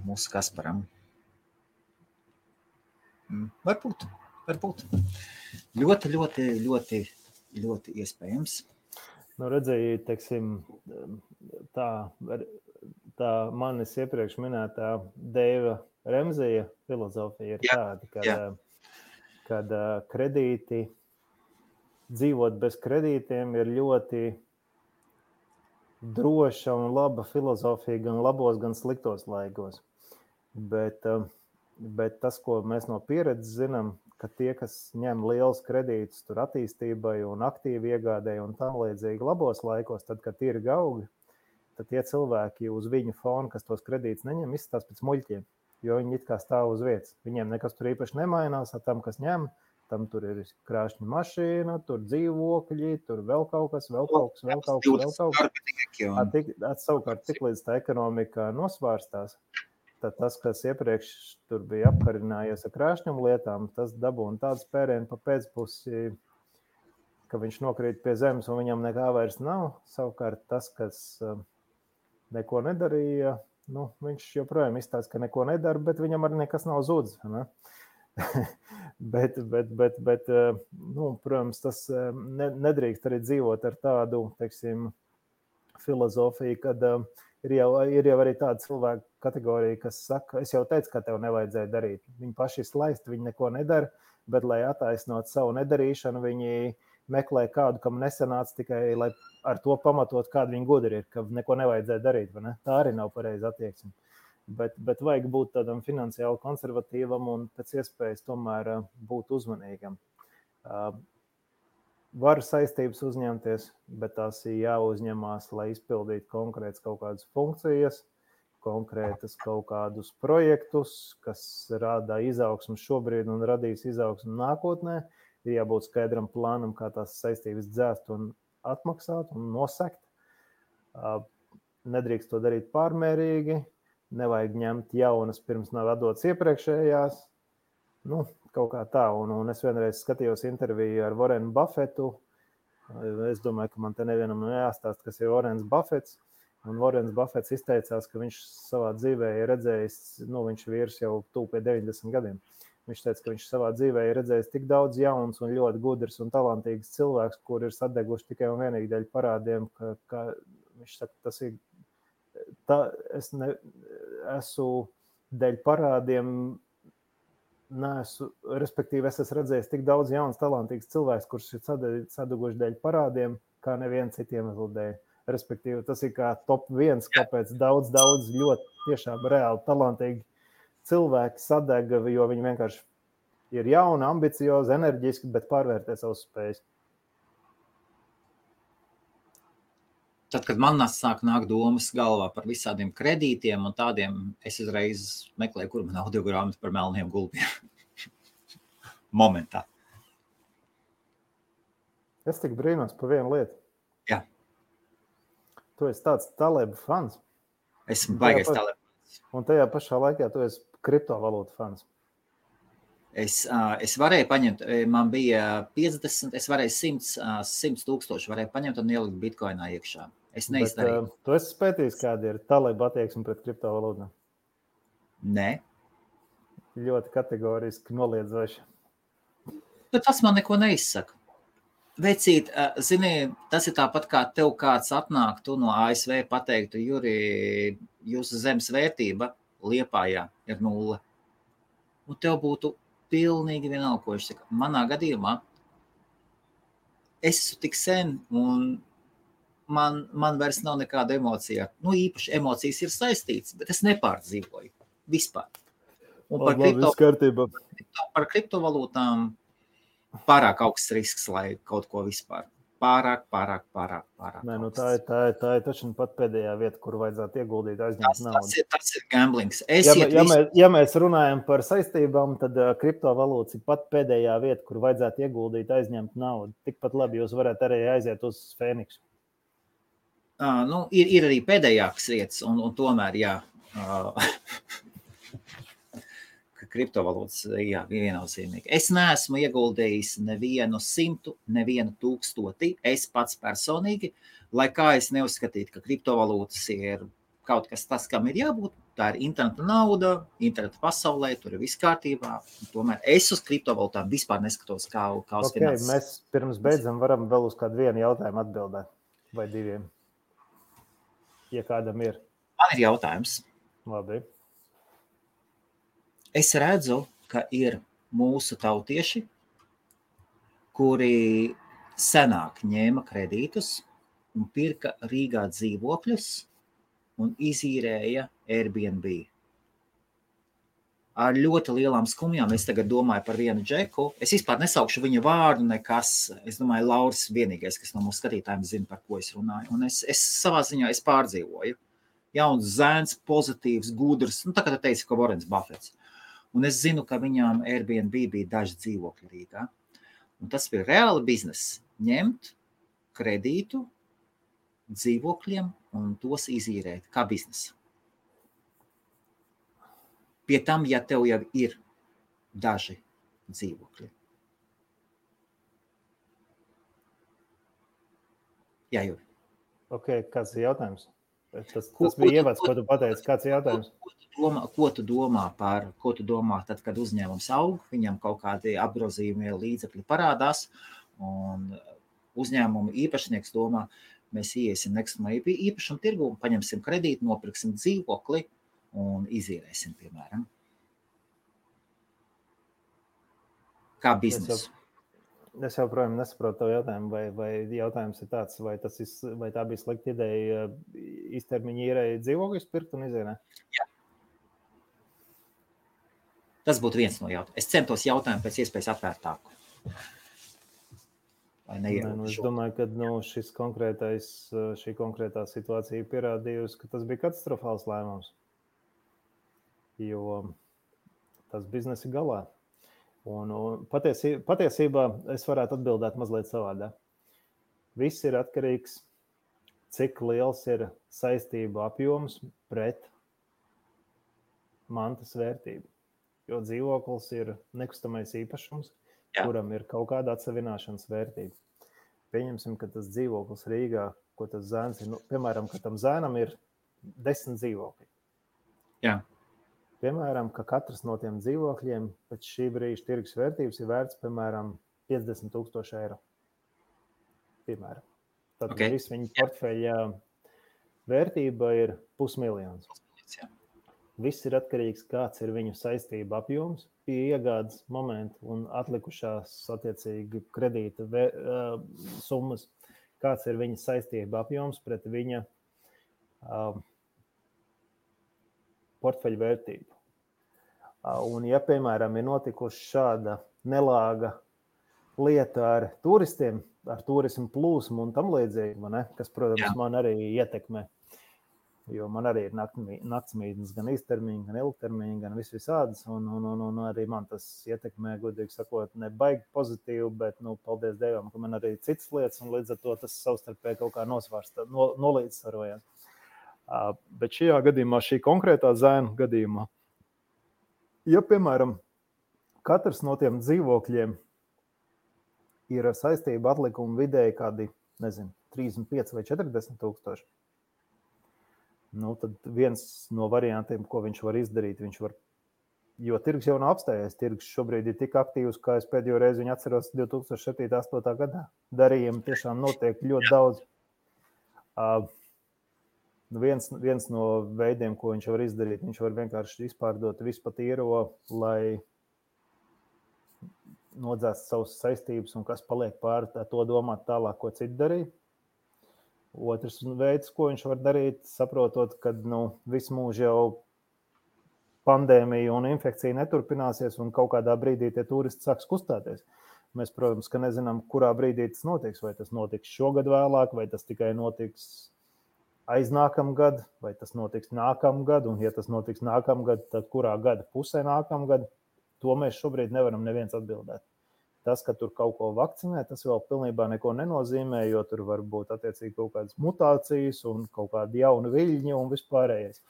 Mūsu Kasparam. Varbūt. Ļoti iespējams. Redzēju, teiksim, tā manis iepriekš minētā Deiva Remzija filozofija ir tāda, kad kredīti, dzīvot bez kredītiem ir ļoti droša un laba filozofija gan labos, gan sliktos laikos. Bet tas, ko mēs no pieredzes zinām, ka tie, kas ņem liels kredītus tur attīstībai un aktīvi iegādēji un tam līdzīgi labos laikos, tad, kad ir augi, tad tie cilvēki uz viņu fonu, kas tos kredītus neņem, izskatās pēc muļķiem, jo viņi it kā stāv uz vietas. Viņiem nekas tur īpaši nemainās, tam, kas ņem, tam tur ir krāšņa mašīna, tur dzīvokļi, tur vēl kaut kas. Savukārt, tik līdz tā ekonomika nosvārstās, tad tas, kas iepriekš tur bija apkarinājies ar krāšņumu lietām, tas dabūna tādu spērienu pa pēcpusi, ka viņš nokrīt pie zemes un viņam nekā vairs nav. Savukārt tas, kas neko nedarīja, viņš joprojām izstāsta, ka neko nedara, bet viņam arī nekas nav zudis. Ne? bet, protams, tas nedrīkst arī dzīvot ar tādu, teiksim, filozofiju, kad ir jau arī tāda cilvēka kategorija, kas saka, es jau teicu, ka tev nevajadzēja darīt. Viņi paši slaisti, viņi neko nedara, bet, lai attaisnot savu nedarīšanu, viņi meklē kādu, kam nesanāca tikai, lai ar to pamatot, kādu viņi gudri ir, ka neko nevajadzēja darīt. Vai ne? Tā arī nav pareiza attieksme. Bet vajag būt tādam finansiāli konservatīvam un pēc iespējas tomēr būt uzmanīgam. Var saistības uzņemties, bet tās ir jāuzņemās, lai izpildītu konkrētas kaut kādas funkcijas, konkrētas kaut kādus projektus, kas rada izaugsmu šobrīd un radīs izaugsmu nākotnē. Ir jābūt skaidram plānam, kā tās saistības dzēst un atmaksāt un nosekt. Nedrīkst to darīt pārmērīgi. Nevajag ņemt jaunas, pirms nav atdotas iepriekšējās. Nu, kaut kā tā, un es vienreiz skatījos interviju ar Warrenu Buffetu. Es domāju, ka man te nevienam jāstāst, kas ir Warrens Buffets. Un Warrens Buffets izteicās, ka viņš savā dzīvē ir redzējis, viņš vīrs jau tuvu pie 90 gadiem. Viņš teica, ka viņš savā dzīvē ir redzējis tik daudz jauns un ļoti gudrs un talantīgs cilvēks, kur ir sadeguši tikai un vienīgi dēļ parādiem, ka viņš saka, tas ir esmu dēļ parādiem, respektīvi es esmu redzējis tik daudz jauns, talantīgs cilvēks, kurš ir sadeguši dēļ parādiem, kā neviens citiem dēļ. Respektīvi, tas ir kā top 1, kāpēc daudz ļoti tiešām reāli talantīgi cilvēki sadega, jo viņi vienkārši ir jauni, ambiciozi, enerģiski, bet pārvērtē savus spējas. Tad, kad man sāk nākt domas galvā par visādiem kredītiem un tādiem, es uzreiz meklēju, kur man audiogrāmata par melniem gulbiem. Momentā. Es tik brīnos par vienu lietu. Jā. Tu esi tāds Taleba fans. Esmu baigais Taleba. Un tajā pašā laikā tu esi kriptovalūtu fans. Es varēju paņemt, man bija 50, es varēju 100 tūkstoši varēju paņemt un ielikt bitcoinā iekšā. Es neizdarīju. Bet tu esi spētījis, kāda ir Taleba attieksme pret kriptovalūtām? Nē. Ļoti kategoriski noliedzoši. Bet tas man neko neizsaka. Vecīt, zini, tas ir tāpat kā tev kāds atnāk, tu no ASV pateiktu, Juri, jūsu zemes vērtība Liepājā ir 0. Un tev būtu pilnīgi vienalga, ko viņš saka. Manā gadījumā es esmu tik sen un man vairs nav nekāda emocija. Īpaši emocijas ir saistītas, bet es nepārdzīvoju vispār. Un par kriptovalūtām pārāk augsts risks, lai kaut ko vispār. Pārāk. Nē, tā ir taču pat pēdējā vieta, kur vajadzētu ieguldīt, aizņemt naudu. Tas ir gamblings. Ja mēs runājam par saistībām, tad kriptovalūtas ir pat pēdējā vieta, kur vajadzētu ieguldīt, aizņemt naudu. Tikpat labi jūs varat arī aiziet uz Fēniksu. Ir arī pēdējākas vietas, un tomēr, jā. Kriptovalūtas, jā, viennozīmīgi. Es neesmu ieguldījis nevienu 100, nevienu 1000, es pats personīgi, lai kā es neuzskatītu, ka kriptovalūtas ir kaut kas tas, kam ir jābūt, tā ir interneta nauda, interneta pasaulē, tur ir viss kārtībā, tomēr es uz kriptovalūtām vispār neskatos kā uz finanses. Mēs pirms beidzam varam vēl uz kādu vienu jautājumu atbildēt, vai diviem, ja kādam ir. Man ir jautājums. Labi. Es redzu, ka ir mūsu tautieši, kuri senāk ņēma kredītus un pirka Rīgā dzīvokļus un izīrēja Airbnb. Ar ļoti lielām skumjām es tagad domāju par vienu džeku. Es vispār nesaukšu viņa vārdu nekas. Es domāju, Lauris vienīgais, kas no mūsu skatītājiem zina, par ko es runāju. Un es savā ziņā pārdzīvoju. Jauns zēns, pozitīvs, gudrs. Tā kā tu teici, ka Warrens Buffets. Un es zinu, ka viņām Airbnb bija daži dzīvokļi Rīgā. Un tas bija reāli bizness. Ņemt kredītu dzīvokļiem un tos izīrēt kā biznesa. Pie tam, ja tev jau ir daži dzīvokļi. Jā, Juri. Ok, kāds ir jautājums? Tas bija ievads, ko tu pateici. Kāds ir jautājums? Ko tu domā tad, kad uzņēmums aug, viņam kaut kādi apgrozījumie līdzekļi parādās, un uzņēmumu īpašnieks domā, mēs iesim nekustamā īpašuma tirgu, paņemsim kredītu, nopirksim dzīvokli un izīrēsim, piemēram. Kā biznesu. Es joprojām nesaprotu tavu jautājumu, vai jautājums ir tāds, vai tā bija slikta ideja īstermiņa īrēja dzīvokļus pirkt un izīrēt? Jā. Tas būtu viens no jautājumiem. Es centos jautājumu pēc iespējas atvērtāku. Es domāju, ka šī konkrētā situācija pierādījusi, ka tas bija katastrofāls lēmums. Jo tas biznesa ir galā. Un patiesībā es varētu atbildēt mazliet savādāk. Viss ir atkarīgs, cik liels ir saistību apjoms pret mantas vērtību. jo dzīvoklis ir nekustamais īpašums, kuram ir kaut kāda atsevināšanas vērtība. Pieņemsim, ka tas dzīvoklis Rīgā, ko tas zēns ir, piemēram, ka tam zēnam ir 10 dzīvokļi. Jā. Piemēram, ka katrs no tiem dzīvokļiem pēc šī brīža tirgus vērtības ir vērts, piemēram, 50,000 eiro. Piemēram. Tad viss viņa portfeļa vērtība ir 500,000. Viss ir atkarīgs, kāds ir viņu saistība apjoms pie iegādes momenta un atlikušās attiecīgi kredīta summas, kāds ir viņa saistība apjoms pret viņa portfeļa vērtību. Un ja, piemēram, ir notikuši šāda nelāga lieta ar turistiem, ar turismu plūsmu un tam līdzīgi, kas, protams, man arī ietekmē. Jo man arī ir naktsmītnes gan īstermiņa, gan ilgtermiņa, gan visādas. Un arī man tas ietekmē, godīgi sakot, ne baigi pozitīvi, bet, paldies Dievam, ka man arī citas lietas, un līdz ar to tas savstarpēji kaut kā nolīdzsvarojās. Bet šajā gadījumā, šī konkrētā zēna gadījumā, ja, piemēram, katrs no tiem dzīvokļiem ir saistība atlikuma vidēji kādi, 35 vai 40,000, tad viens no variantiem, ko viņš var izdarīt, jo tirgus jau nav apstājies, tirgus šobrīd ir tik aktīvs, kā es pēdējo reizi viņu atceros 2007.–2008. gadā. Darījumi tiešām notiek ļoti daudz. Viens no veidiem, ko viņš var izdarīt, viņš var vienkārši izpārdot visu pat īro, lai nodzēst savas saistības un kas paliek pāri, to domāt tālāk, ko citi darīt. Otrs veids, ko viņš var darīt, saprotot, ka visu mūžu jau pandēmija un infekcija neturpināsies un kaut kādā brīdī tie turisti sāks kustēties. Mēs, protams, ka nezinām, kurā brīdī tas notiks, vai tas notiks šogad vēlāk, vai tas tikai notiks aiznākamgad, vai tas notiks nākamgad, un ja tas notiks nākamgad, tad kurā gada pusē nākamgad, to mēs šobrīd nevaram neviens atbildēt. Tas, ka tur kaut ko vakcinē, tas vēl pilnībā neko nenozīmē, jo tur var būt attiecīgi kaut kādas mutācijas un kaut kādi jauni viļņi un vispārējais.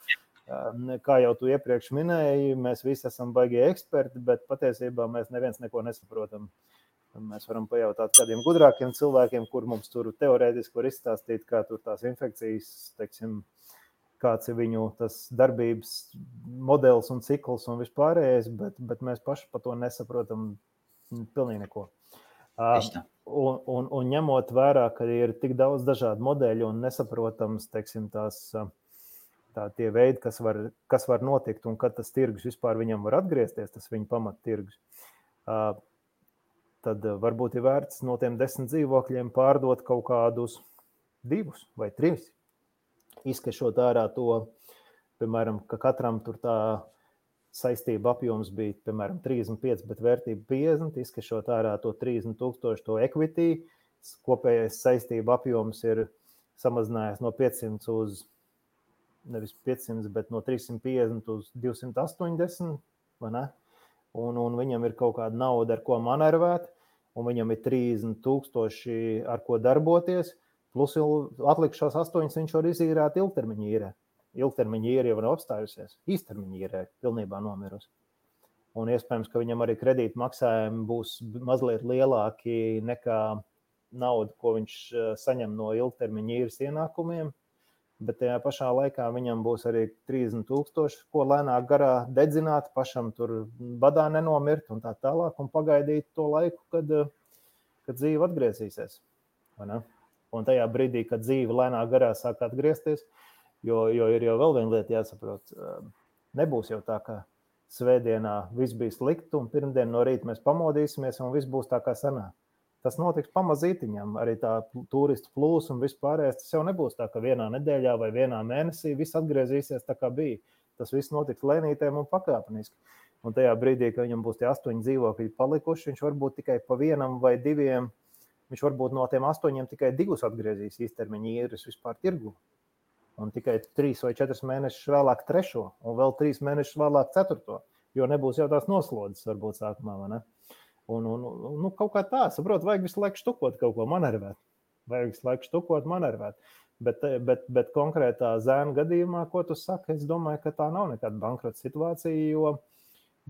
Kā jau tu iepriekš minēji, mēs visi esam baigie eksperti, bet patiesībā mēs neviens neko nesaprotam. Mēs varam pajautāt kādiem gudrākiem cilvēkiem, kur mums tur teorētiski var izstāstīt, kā tur tās infekcijas, teiksim, kāds ir viņu tas darbības modelis un cikls un vispārējais, bet mēs paši par to nesaprotam pilnīgi neko. Un ņemot vērā, ka ir tik daudz dažādu modeļu un nesaprotams, teiksim, tie veidi, kas var notikt un kad tas tirgus vispār viņam var atgriezties, tas viņa pamattirgus, tad varbūt ir vērts no tiem 10 dzīvokļiem pārdot kaut kādus 2 vai 3. Izkešot ārā to, piemēram, ka katram tur tā saistība apjoms bija, piemēram, 35, bet vērtība 50, izkešot ārā to 30,000 to equity, kopējais saistība apjoms ir samazinājies no 500 uz, nevis 500, bet no 350 uz 280, vai ne? Un viņam ir kaut kāda nauda, ar ko manervēt, un viņam ir 30,000, ar ko darboties, plus atlikušās 8 viņš var izīrēt ilgtermiņa īrē. Ilgtermiņa īre jau nav apstājusies, īstermiņa īre pilnībā nomirusi. Un iespējams, ka viņam arī kredīta maksājumi būs mazliet lielāki nekā nauda, ko viņš saņem no ilgtermiņa īres ienākumiem, bet tajā pašā laikā viņam būs arī 30,000, ko lēnāk garā dedzināt, pašam tur badā nenomirt un tā tālāk, un pagaidīt to laiku, kad dzīve atgriezīsies. Un tajā brīdī, kad dzīve lēnāk garā sāk atgriezties, jo ir jau vēl viena lieta jāsaprot. Nebūs jau tā, ka svētdienā viss bija slikti un pirmdien no rīta mēs pamodīsimies un viss būs tā kā sanāk. Tas notiks pamazītiņam, arī tā turistu plūs un vispārējais. Tas jau nebūs tā, ka vienā nedēļā vai vienā mēnesī viss atgriezīsies tā kā bija. Tas viss notiks lēnītēm un pakāpeniski. Un tajā brīdī, kad viņam būs tie 8 dzīvokļi palikuši, viņš varbūt tikai pa 1 vai 2, viņš varbūt no tiem 8 tikai 2 atgriezīs īstermiņa īres vispār tirgu. Un tikai 3 vai 4 mēnešus vēlāk 3. un vēl 3 mēnešus vēlāk 4. jo nebūs jau tās noslodzes varbūt sākumā, vai ne? Un kaut kā tā, saprot, vajag visu laiku štukot kaut ko manervēt. Bet konkrētā zēna gadījumā, ko tu saki, es domāju, ka tā nav nekāda bankrota situācija, jo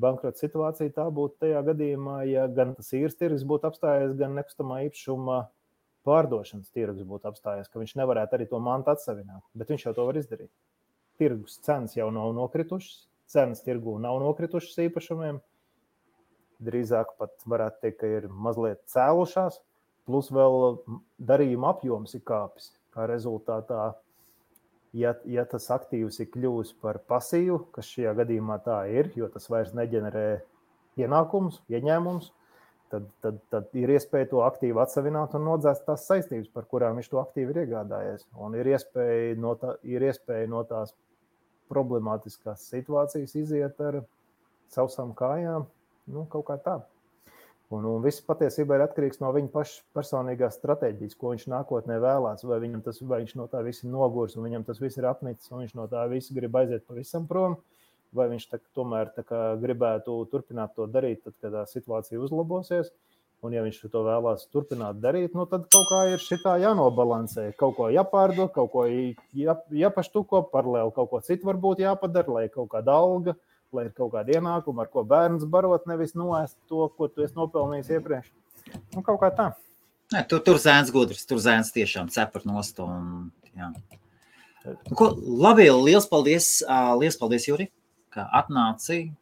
bankrota situācija tā būtu tajā gadījumā, ja gan tas īres tirgus būtu apstājies, gan nekustamā īpašuma pārdošanas tirgus būtu apstājies, ka viņš nevarētu arī to mantu atsavināt, bet viņš jau to var izdarīt. Tirgus cenas jau nav nokritušas, cenas tirgū nav nokritušas īpašumiem, drīzāk pat varētu teikt, ka ir mazliet cēlušās, plus vēl darījuma apjoms ir kāpis, kā rezultātā, ja tas aktīvs ir kļuvis par pasīvu, kas šajā gadījumā tā ir, jo tas vairs neģenerē ienākumus, ieņēmumus, tad ir iespēja to aktīvu atsavināt un nodzēst tās saistības, par kurām viņš to aktīvu ir iegādājies. Un ir iespēja no tās problemātiskās situācijas iziet ar sausām kājām, kaut kā tā. Un viss patiesībā ir atkarīgs no viņa paša personīgās stratēģijas, ko viņš nākotnē vēlās, vai viņš no tā viss ir nogurs, un viņam tas viss ir apnicis, un viņš no tā viss grib aiziet pavisam prom, vai viņš tomēr gribētu turpināt to darīt, tad, kad tā situācija uzlabosies, un ja viņš to vēlās turpināt darīt, tad kaut kā ir šitā jānobalansē, kaut ko jāpārdod, kaut ko jāpaštuko, paralēli kaut ko citu varbūt jāpadara, lai kaut kāda alga, lai ir kaut kāda ienākuma, ar ko bērns barot, nevis noēst to, ko tu esi nopelnījis iepriekš. Kaut kā tā. Ne, tur zēns gudrs, tur zēns tiešām cepar nost. Jā. Labi, liels paldies, Juri, ka atnāci,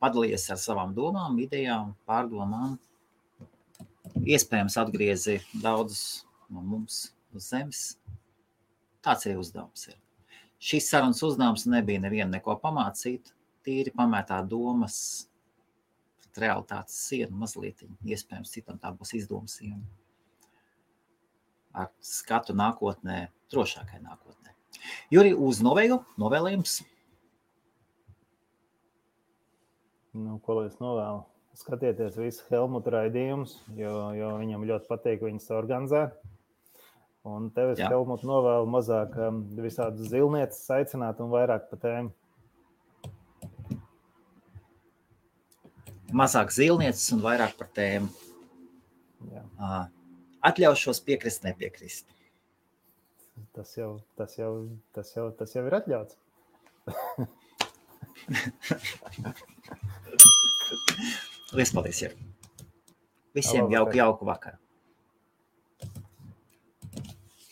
padalījies ar savām domām, idejām, pārdomām. Iespējams atgriezi daudzus no mums uz zemes. Tāds arī uzdevums ir. Šis sarunas uzdevums nebija nevienu neko pamācīt, tīri pamētā domas pret realitātes sienu mazliet. Iespējams, citam tā būs izdoma siena. Ar skatu nākotnē, drošākai nākotnē. Juri, uz novēlējums? Ko lai es novēlu? Skatieties visu Helmuta raidījumus, jo viņam ļoti patīk viņas organizē. Un tev es Helmuta novēlu mazāk visādas zilnieces aicināt un vairāk pa tēmu. Mazāk zilnieces un vairāk par tēmu. Jā. Atļaušos piekrist, nepiekrist. Tas jau ir atļauts. Liels paldies, Juri. Visiem jauku vakaru.